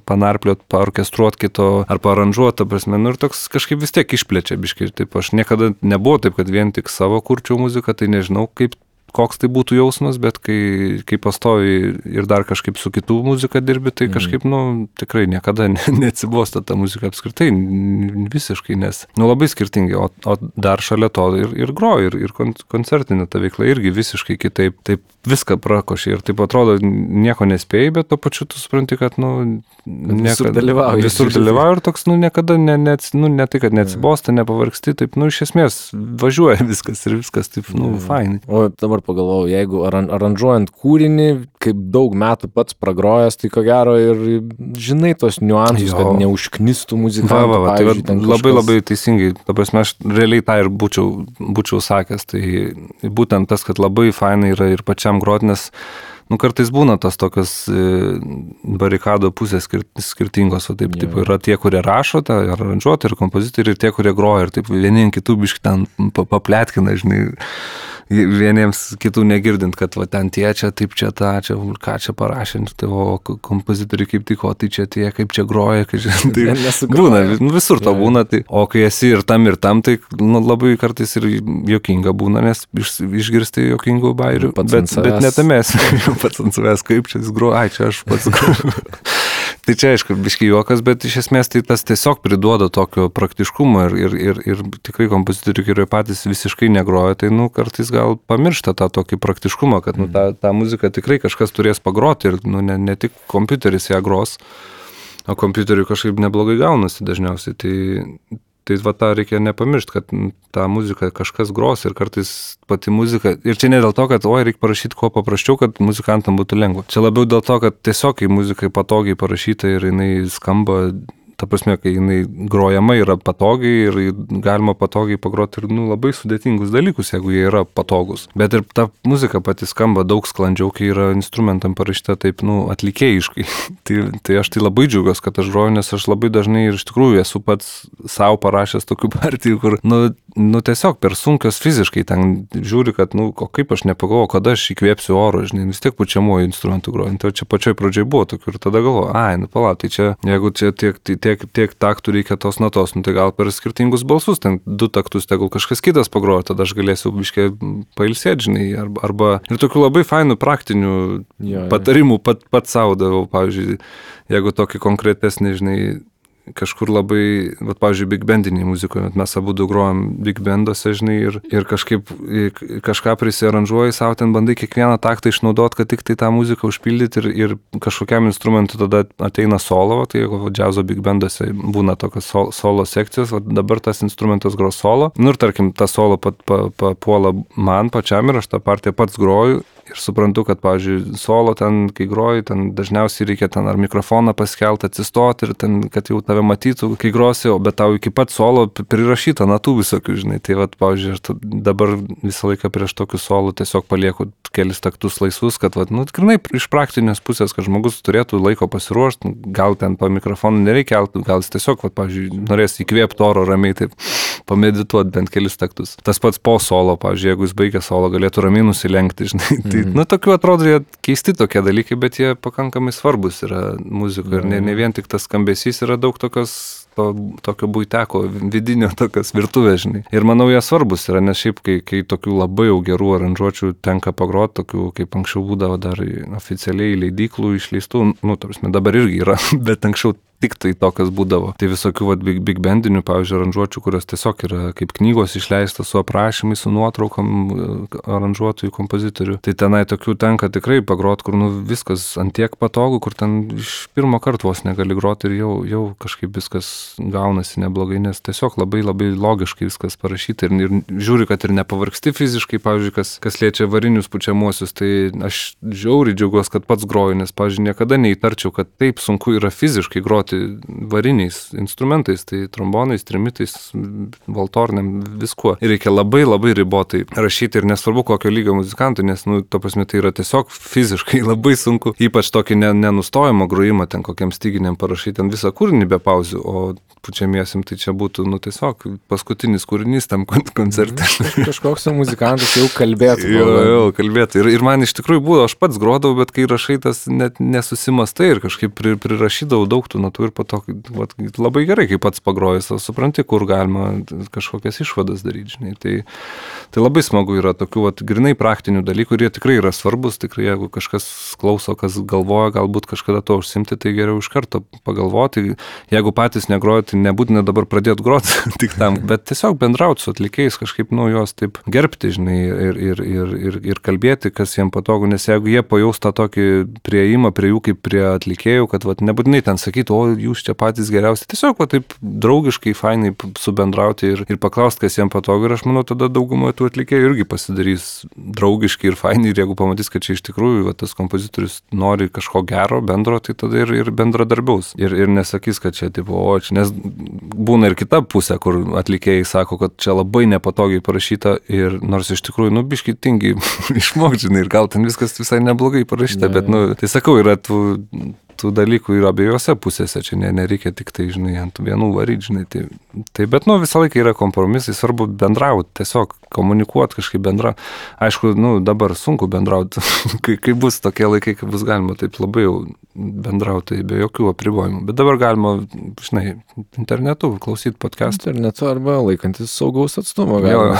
panarpliot, paorkestruot kito ar paaranžuot, ta prasme, ir toks kažkaip vis tiek išplečia biškai. Taip, aš niekada nebuvo taip, kad vien tik savo kurčiau muziką, tai nežinau, koks tai būtų jausmas, bet kai pastovi ir dar kažkaip su kitų muzika dirbi, tai kažkaip, tikrai niekada neatsibosta ta muzika apskritai, visiškai, nes, labai skirtingai, o dar šalia to ir groji, ir koncertinė ta veikla irgi visiškai kitaip, taip viską prakoši ir taip atrodo, nieko nespėjai, bet to pačiu tu supranti, kad, visur dalyvauji ir toks, niekada ne tai, kad neatsibosta, nepavargsti, taip, iš esmės važiuoja viskas ir viskas taip, fainai. O dabar pagalvojau, jeigu aranžuojant kūrinį, kaip daug metų pats pragrojęs, tai ko gero ir žinai tos niuansus, kad neužknistų muzikantų. Tai labai teisingai, ta prasme, aš realiai tą ir būčiau sakęs, tai būtent tas, kad labai fainai yra ir pačiam groti, nes kartais būna tas tokios barikado pusės skirtingos, o taip yra tie, kurie rašo, aranžuotojai ir kompozitoriai, ir tie, kurie groja, ir taip vieni kitų biškį ten papletkina, žinai, vieniems kitų negirdint, kad ten tie čia, taip čia tą, čia, ką čia parašė, tai o kompozitoriai kaip tik, o tai čia tie, kaip čia groja, tai būna, visur to būna, tai, o kai esi ir tam, tai labai kartais ir juokinga būna, nes išgirsti juokingų bairių, bet netamės. Pats ant savęs, kaip čia jis groja, čia aš pats groju. Tai čia, aišku, biškai juokas, bet iš esmės tai tas tiesiog priduoda tokio praktiškumo ir tikrai kompozitoriai, kurie patys visiškai negroja, tai kartais gal pamiršta tą tokį praktiškumą, kad tą muziką tikrai kažkas turės pagroti ir ne tik kompiuteris ją gros, o kompiuteriui kažkaip neblogai gaunasi dažniausiai. Tai tą reikia nepamiršti, kad tą muziką kažkas gros ir kartais pati muzika. Ir čia ne dėl to, kad reikia parašyti kuo paprasčiau, kad muzikantam būtų lengva. Čia labiau dėl to, kad tiesiog kai muzikai patogiai parašyta ir jinai skamba, ta prasme, kai jinai grojama yra patogiai ir galima patogiai pagroti ir labai sudėtingus dalykus, jeigu jie yra patogus. Bet ir ta muzika pati skamba daug sklandžiau, kai yra instrumentam parašyta taip, atlikėjiškai. tai aš tai labai džiaugiuosi, kad aš groju, nes aš labai dažnai ir iš tikrųjų esu pats savo parašęs tokių partijų, kur, tiesiog per sunkios fiziškai ten žiūri, kad, o kaip aš nepagalvoju, kada aš įkvėpsiu oro, žinai, vis tiek pučiamuoju instrumentu groju. Tai čia pačioj pradžioj buvo tokių ir tada galvoju, palauk, tai čia, jeigu čia tiek taktų reikia tos natos, tai gal per skirtingus balsus, ten 2 taktus, tegul kažkas kitas pagroja, tada aš galėsiu biškai pailsėti, žinai, arba ir tokių labai fainų praktinių patarimų pat savo davau, pavyzdžiui, jeigu tokį konkretesnį, žinai, kažkur labai, pavyzdžiui, big bandiniai muzikoje, mes abu grojam big banduose, žinai, ir kažkaip kažką prisiaranžuoji, savo ten bandai kiekvieną taktą išnaudoti, kad tik tai tą muziką užpildyti ir kažkokiam instrumentui tada ateina solo, tai jeigu džiazo big banduose būna tokios solo sekcijos, dabar tas instrumentas gros solo, ir tarkim, tą solo papuola man pačiam ir aš tą partiją pats groju. Ir suprantu, kad, pavyzdžiui, solo ten, kai groji, ten dažniausiai reikia ten ar mikrofoną paskelti, atsistoti ir ten, kad jau tave matytų, kai grosi, bet tau iki pat solo prirašyta natų visokių, žinai. Tai, pavyzdžiui, aš dabar visą laiką prieš tokius solo tiesiog palieku kelis taktus laisvus, kad, tikrai iš praktinės pusės, kad žmogus turėtų laiko pasiruošti, gal ten po mikrofonu nereikia, gal jis tiesiog, pavyzdžiui, norės įkvėpti oro ramiai, taip pamedituoti bent kelis taktus. Tas pats po solo, pavyzdžiui, jeigu jis baigia solo, galėtų ramiai nusilenkti, žinai. Tai, tokių atrodo, jie keisti tokie dalykai, bet jie pakankamai svarbus yra muzikoje ir ne vien tik tas skambesys, yra daug tokio buiteko, vidinio tokios virtuvės, žinai. Ir manau, jie svarbus yra, nes šiaip, kai tokių labai jau gerų aranžuočių tenka pagroti, tokių, kaip anksčiau būdavo dar oficialiai leidyklų išleistų, tarpsme, dabar irgi yra, bet anksčiau tik tai tokias būdavo. Tai visokių vat, big bandinių, pavyzdžiui, aranžuočių, kurios tiesiog yra kaip knygos išleistas su aprašymais, su nuotraukom aranžuotojų, kompozitorių. Tai tenai tokių tenka tikrai pagrot, kur viskas antiek patogu, kur ten iš pirmo karto vos negali groti ir jau kažkaip viskas gaunasi neblogai, nes tiesiog labai logiškai viskas parašyta ir žiūri, kad ir nepavargsti fiziškai, pavyzdžiui, kas liečia varinius pučiamuosius, tai aš žiauriai džiaugiuosi, kad pats groju, nes, pavyzdžiui, niekada neįtarčiau, kad taip sunku yra fiziškai groti variniais instrumentais, tai trombonais, trimitais, valtorniam, viskuo. Ir reikia labai ribotai rašyti ir nesvarbu kokio lygio muzikantui, nes, to prasme, tai yra tiesiog fiziškai labai sunku, ypač tokį nenustojimo grojimą, ten kokiam styginiam parašyti, ten visą kūrinį be pauzių, o pučiamiesim tai čia būtų, tiesiog paskutinis kūrinys tam koncerte. Kažkoks muzikantas jau kalbėtų. Jo, kalbėtų. Ir man iš tikrųjų buvo, aš pats grodavau, bet kai rašai, tas net nesusimastai ir kažkaip prirašydavau daug tų natų ir po to labai gerai, kai pats pagrojęs, supranti, kur galima kažkokias išvadas daryti, žinai. Tai labai smagu yra tokių grinai praktinių dalykų ir jie tikrai yra svarbus, tikrai jeigu kažkas klauso, kas galvoja, galbūt kažkada to užsimti, tai geriau iš karto pagalvoti. Jeigu patys negrojate, tai nebūtina dabar pradėti groti tik tam, bet tiesiog bendrauti su atlikėjais, kažkaip juos taip gerbti, žinai, ir kalbėti, kas jiems patogu, nes jeigu jie pajaus tą tokį prieimą prie jų kaip prie atlikėjų, kad nebūtinai ten sakytų, o jūs čia patys geriausi, tiesiog taip draugiškai, fainai subendrauti ir paklausti, kas jiems patogu ir aš manau, tada daugumoje tų atlikėjų irgi pasidarys draugiškai ir fainai ir jeigu pamatys, kad čia iš tikrųjų tas kompozitorius nori kažko gero, bendro, tai tada ir bendradarbiaus ir nesakys, kad čia tipo, o čia, nes būna ir kita pusė, kur atlikėjai sako, kad čia labai nepatogiai parašyta ir nors iš tikrųjų, biškai tingi išmokti, žinai, ir gal ten viskas visai neblogai parašyta, bet, tai sakau, yra tų dalykų yra abiejose pusėse, čia nereikia tik tai, žinai, ant vienų varyti, žinai, tai bet, visą laiką yra kompromisai, svarbu bendrauti, tiesiog komunikuoti kažkaip bendra. Aišku, dabar sunku bendrauti, kai bus tokie laikai, kai bus galima taip labai jau bendrauti, be jokių apribojimų, bet dabar galima, žinai, internetu klausyti podcast'ą. Internetu arba laikantis saugaus atstumo, galima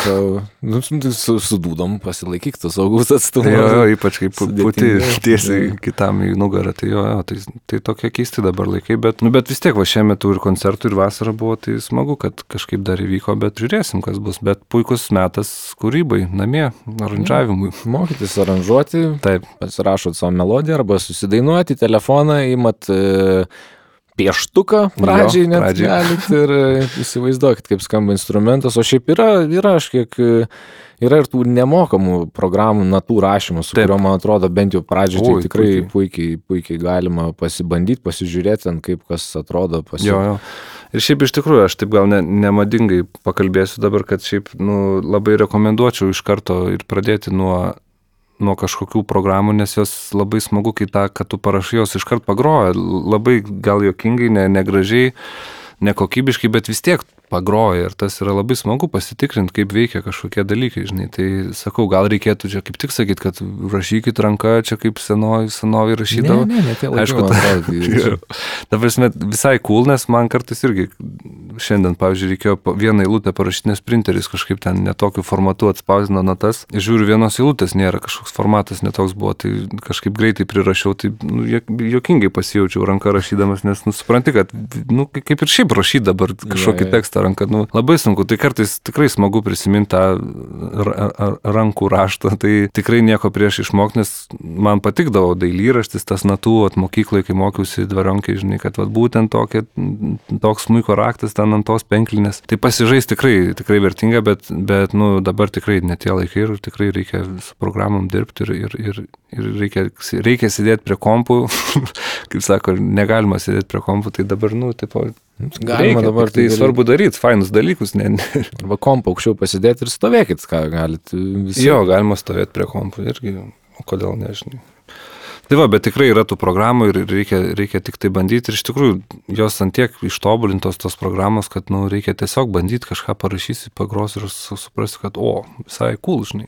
su dūdom pasilaikyk tą saugaus atstumą. Jo, ypač kaip puti tiesiai kitam į nugarą, tai tokie keisti dabar laikai, bet vis tiek šiemet ir koncertų ir vasara buvo, tai smagu, kad kažkaip dar įvyko, bet žiūrėsim, kas bus, bet puikus metas kūrybai, namie, aranžavimui. Mokytis aranžuoti, taip, pasirašot savo melodiją arba susidainuoti, telefoną įmat pieštuką pradžiai net galit ir įsivaizduokit, kaip skamba instrumentas, o šiaip yra aš kiek yra ir tų nemokamų programų natų rašymų, su kuriuo, man atrodo, bent jau pradžiai tai tikrai puikiai galima pasibandyti, pasižiūrėti, kaip kas atrodo. Jo. Ir šiaip iš tikrųjų, aš taip gal nemadingai pakalbėsiu dabar, kad šiaip labai rekomenduočiau iš karto ir pradėti nuo kažkokių programų, nes jos labai smagu, kai kad tu parašai, jos iš karto pagroja, labai gal juokingai, negražiai, nekokybiškai, bet vis tiek pagroja ir tas yra labai smagu pasitikrinti, kaip veikia kažkokie dalykai, žinai. Tai sakau, gal reikėtų čia kaip tik sakyti, kad rašykit ranką, čia kaip senovi rašydavo. Ne, tie laikai, aišku, man atrodo. Ta prasme, visai cool, nes man kartais irgi šiandien, pavyzdžiui, reikėjo vieną eilutę parašyti, nes printeris kažkaip ten netokiu formatu atspausdino natas. Žiūriu, vienos eilutės nėra, kažkoks formatas netoks buvo, tai kažkaip greitai prirašiau, tai juokingai pasijaučiau ranką rašydamas, nes supranti, kad kaip ir šiaip rašyti dabar kažkokį tekstą ranką, labai sunku, tai kartais tikrai smagu prisiminti tą rankų raštą, tai tikrai nieko prieš išmokti, nes man patikdavo dailyraštis, tas natų mokykloje, kai mokiausi dvarionkai, žinai, kad būtent toks smuiko raktas ten ant tos penklinės, tai pasižais tikrai vertinga, bet dabar tikrai ne tie laikai ir tikrai reikia su programom dirbti ir reikia sėdėti prie kompų, kaip sako, negalima sėdėti prie kompų, tai dabar, galima dabar tai svarbu daryti, fainus dalykus, arba kompą aukščiau pasidėti ir stovėkit, ką galit visi. Jo, galima stovėti prie kompų irgi, o kodėl nežinai. Tai bet tikrai yra tų programų ir reikia tik tai bandyti ir iš tikrųjų jos antiek ištobulintos tos programos, kad reikia tiesiog bandyti kažką parašysi, pagros ir suprasti, kad visai cool, žinai.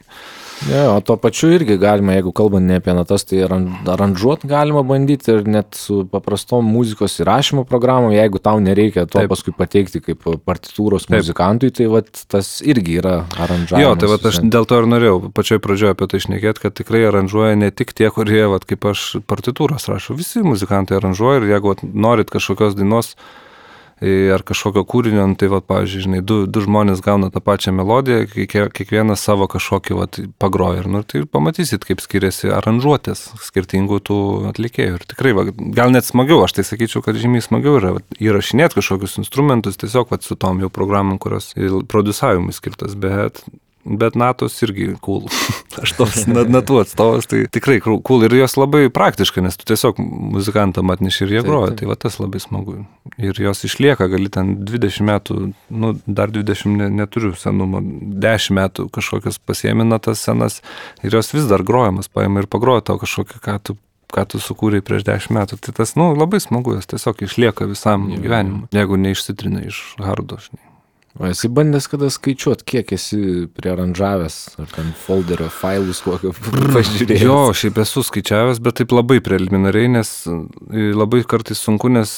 Ja, o to pačiu irgi galima, jeigu kalbant ne apie natas, tai aranžuot galima bandyti ir net su paprastom muzikos įrašymo programom, jeigu tau nereikia to paskui pateikti kaip partitūros muzikantui, tai tas irgi yra aranžavimas. Jo, tai aš dėl to ir norėjau pačioj pradžioje apie tai šnekėti, kad tikrai aranžuoja ne tik tie, kurie, kaip aš partitūros rašau. Visi muzikantai aranžuoja ir jeigu norit kažkokios dainos ar kažkokio kūrinio, tai, pavyzdžiui, žinai, du žmonės gauna tą pačią melodiją, kiekvienas savo kažkokį pagroja. Tai pamatysit, kaip skiriasi aranžuotės skirtingų tų atlikėjų. Ir tikrai, gal net smagiau, aš tai sakyčiau, kad žymiai smagiau yra įrašinėti kažkokius instrumentus, tiesiog su tom jau programom, kurios prodiusavimui skirtas, bet natos irgi cool. Aš tos natų atstovas, tai tikrai cool ir jos labai praktiškai, nes tu tiesiog muzikantam atneši ir jie groja, tai tas labai smagu. Ir jos išlieka, gali ten 20 metų, dar 20 neturiu senumo, 10 metų kažkokios pasiėmė natas senas ir jos vis dar grojamas, paima ir pagroja tau kažkokį, ką tu sukūrei prieš 10 metų. Tai tas, labai smagu, jos tiesiog išlieka visam gyvenimui, jeigu neišsitrina iš hardo, žinai. O esi bandęs kada skaičiuot, kiek esi priaranžavęs, ar ten folderio failus kokio pažiūrėjęs? Jo, šiaip esu skaičiavęs, bet taip labai preliminariai, nes labai kartais sunku, nes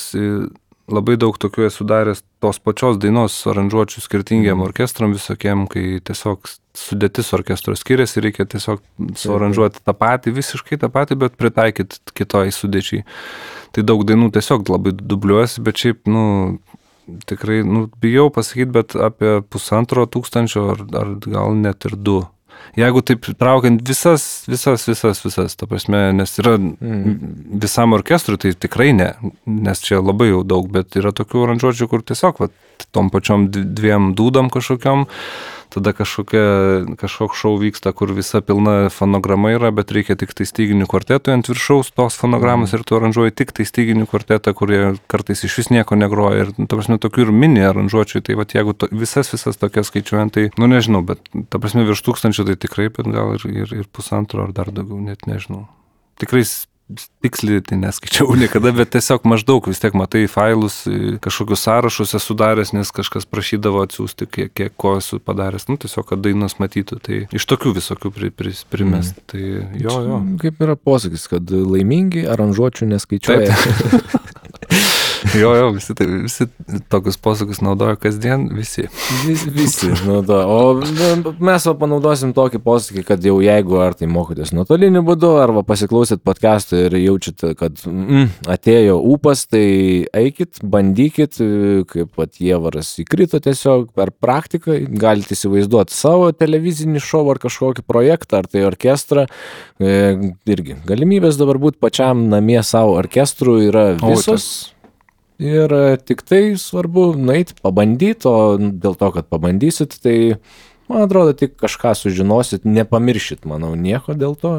labai daug tokių esu daręs tos pačios dainos aranžuočių skirtingiem orkestram visokiem, kai tiesiog sudėtis orkestro skiriasi, reikia tiesiog suaranžuoti tą patį, visiškai tą patį, bet pritaikyti kitoj sudėčiai. Tai daug dainų tiesiog labai dubliuosi, bet šiaip, tikrai, bijau pasakyti, bet apie 1500 ar gal net ir 2. Jeigu taip traukiant visas, ta prasme, nes yra visam orkestrui, tai tikrai ne, nes čia labai jau daug, bet yra tokių aranžuočių, kur tiesiog tom pačiom 2 dūdom kažkokiom, tada kažkoks šou vyksta, kur visa pilna fonograma yra, bet reikia tik tai styginių kvartetui ant viršaus tos fonogramos ir tu aranžuoji tik tai styginių kvartetą, kurie kartais iš vis nieko negroja. Ir, ta prasme, tokių ir mini aranžuočių, tai jeigu visas tokias skaičiuojant, tai, nežinau, bet, ta prasme, virš 1000 tai tikrai, bet gal ir 1,5 ar dar daugiau, net nežinau. Tikrai tiksliai tai neskaičiau niekada, bet tiesiog maždaug vis tiek matai failus, kažkokius sąrašus esu daręs, nes kažkas prašydavo atsiųsti, kiek ko esu padaręs, tiesiog, kad dainos matytų, tai iš tokių visokių primest. Tai jo. Kaip yra posakis, kad laimingi aranžuočių neskaičiuoja. Jo, visi tokius posakius naudoja kasdien, visi naudoja. O mes panaudosim tokį posakį, kad jau jeigu ar tai mokotės nuotoliniu būdu, arba pasiklausyt podcast'ą ir jaučiat, kad atėjo ūpas, tai eikit, bandykit, kaip Jievaras įkrito tiesiog per praktiką, galite įsivaizduoti savo televizinį šou ar kažkokį projektą, ar tai orkestrą. Irgi galimybės dabar būti pačiam namie savo orkestru yra visos. Ir tik tai svarbu nueiti, pabandyti, o dėl to, kad pabandysit, tai, man atrodo, tik kažką sužinosit, nepamiršit, manau, nieko dėl to,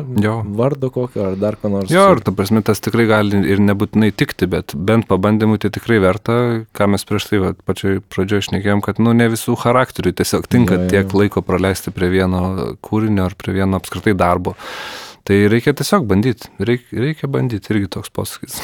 vardo kokio ar dar ką nors. Jo, ir ta prasme, tas tikrai gali ir nebūtinai tikti, bet bent pabandymui tai tikrai verta, ką mes prieš tai pačioj pradžioje šnekėjom, kad ne visų charakterių tiesiog tinka tiek laiko praleisti prie vieno kūrinio ar prie vieno apskritai darbo. Tai reikia tiesiog bandyti, reikia bandyti, irgi toks posakis.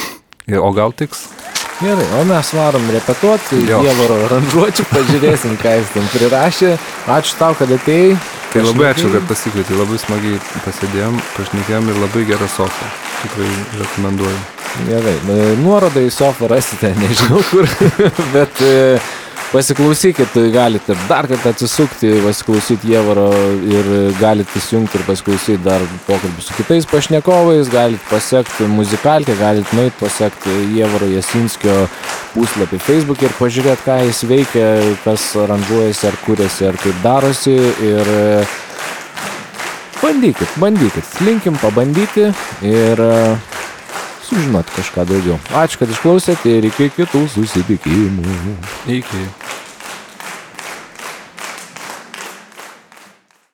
O gal tiks? Gerai, o mes varom repetuoti, Ievaro aranžuočių, pažiūrėsim, ką jis ten prirašė. Ačiū tau, kad atėjai. Tai labai ačiū, kad pasikvietei, labai smagiai pasėdėjom, pašnekėjom ir labai gera sofa. Tikrai rekomenduoju. Gerai, nuorodą į sofą rasite, nežinau kur, bet pasiklausykit, galite dar kartą atsisukti, pasiklausyti Ievaro ir galite įsijungti ir pasiklausyti dar pokalbį su kitais pašnekovais, galite pasiekti muzikalkę, galite nueiti pasiekti Ievaro Jasinskio puslapį Facebook'e ir pažiūrėti, ką jis veikia, kas aranžuojasi, ar kuriasi, ar kaip darosi ir bandykit, linkim pabandyti ir sužinoti kažką daugiau. Ačiū, kad išklausėte ir iki kitų susitikimų. Iki.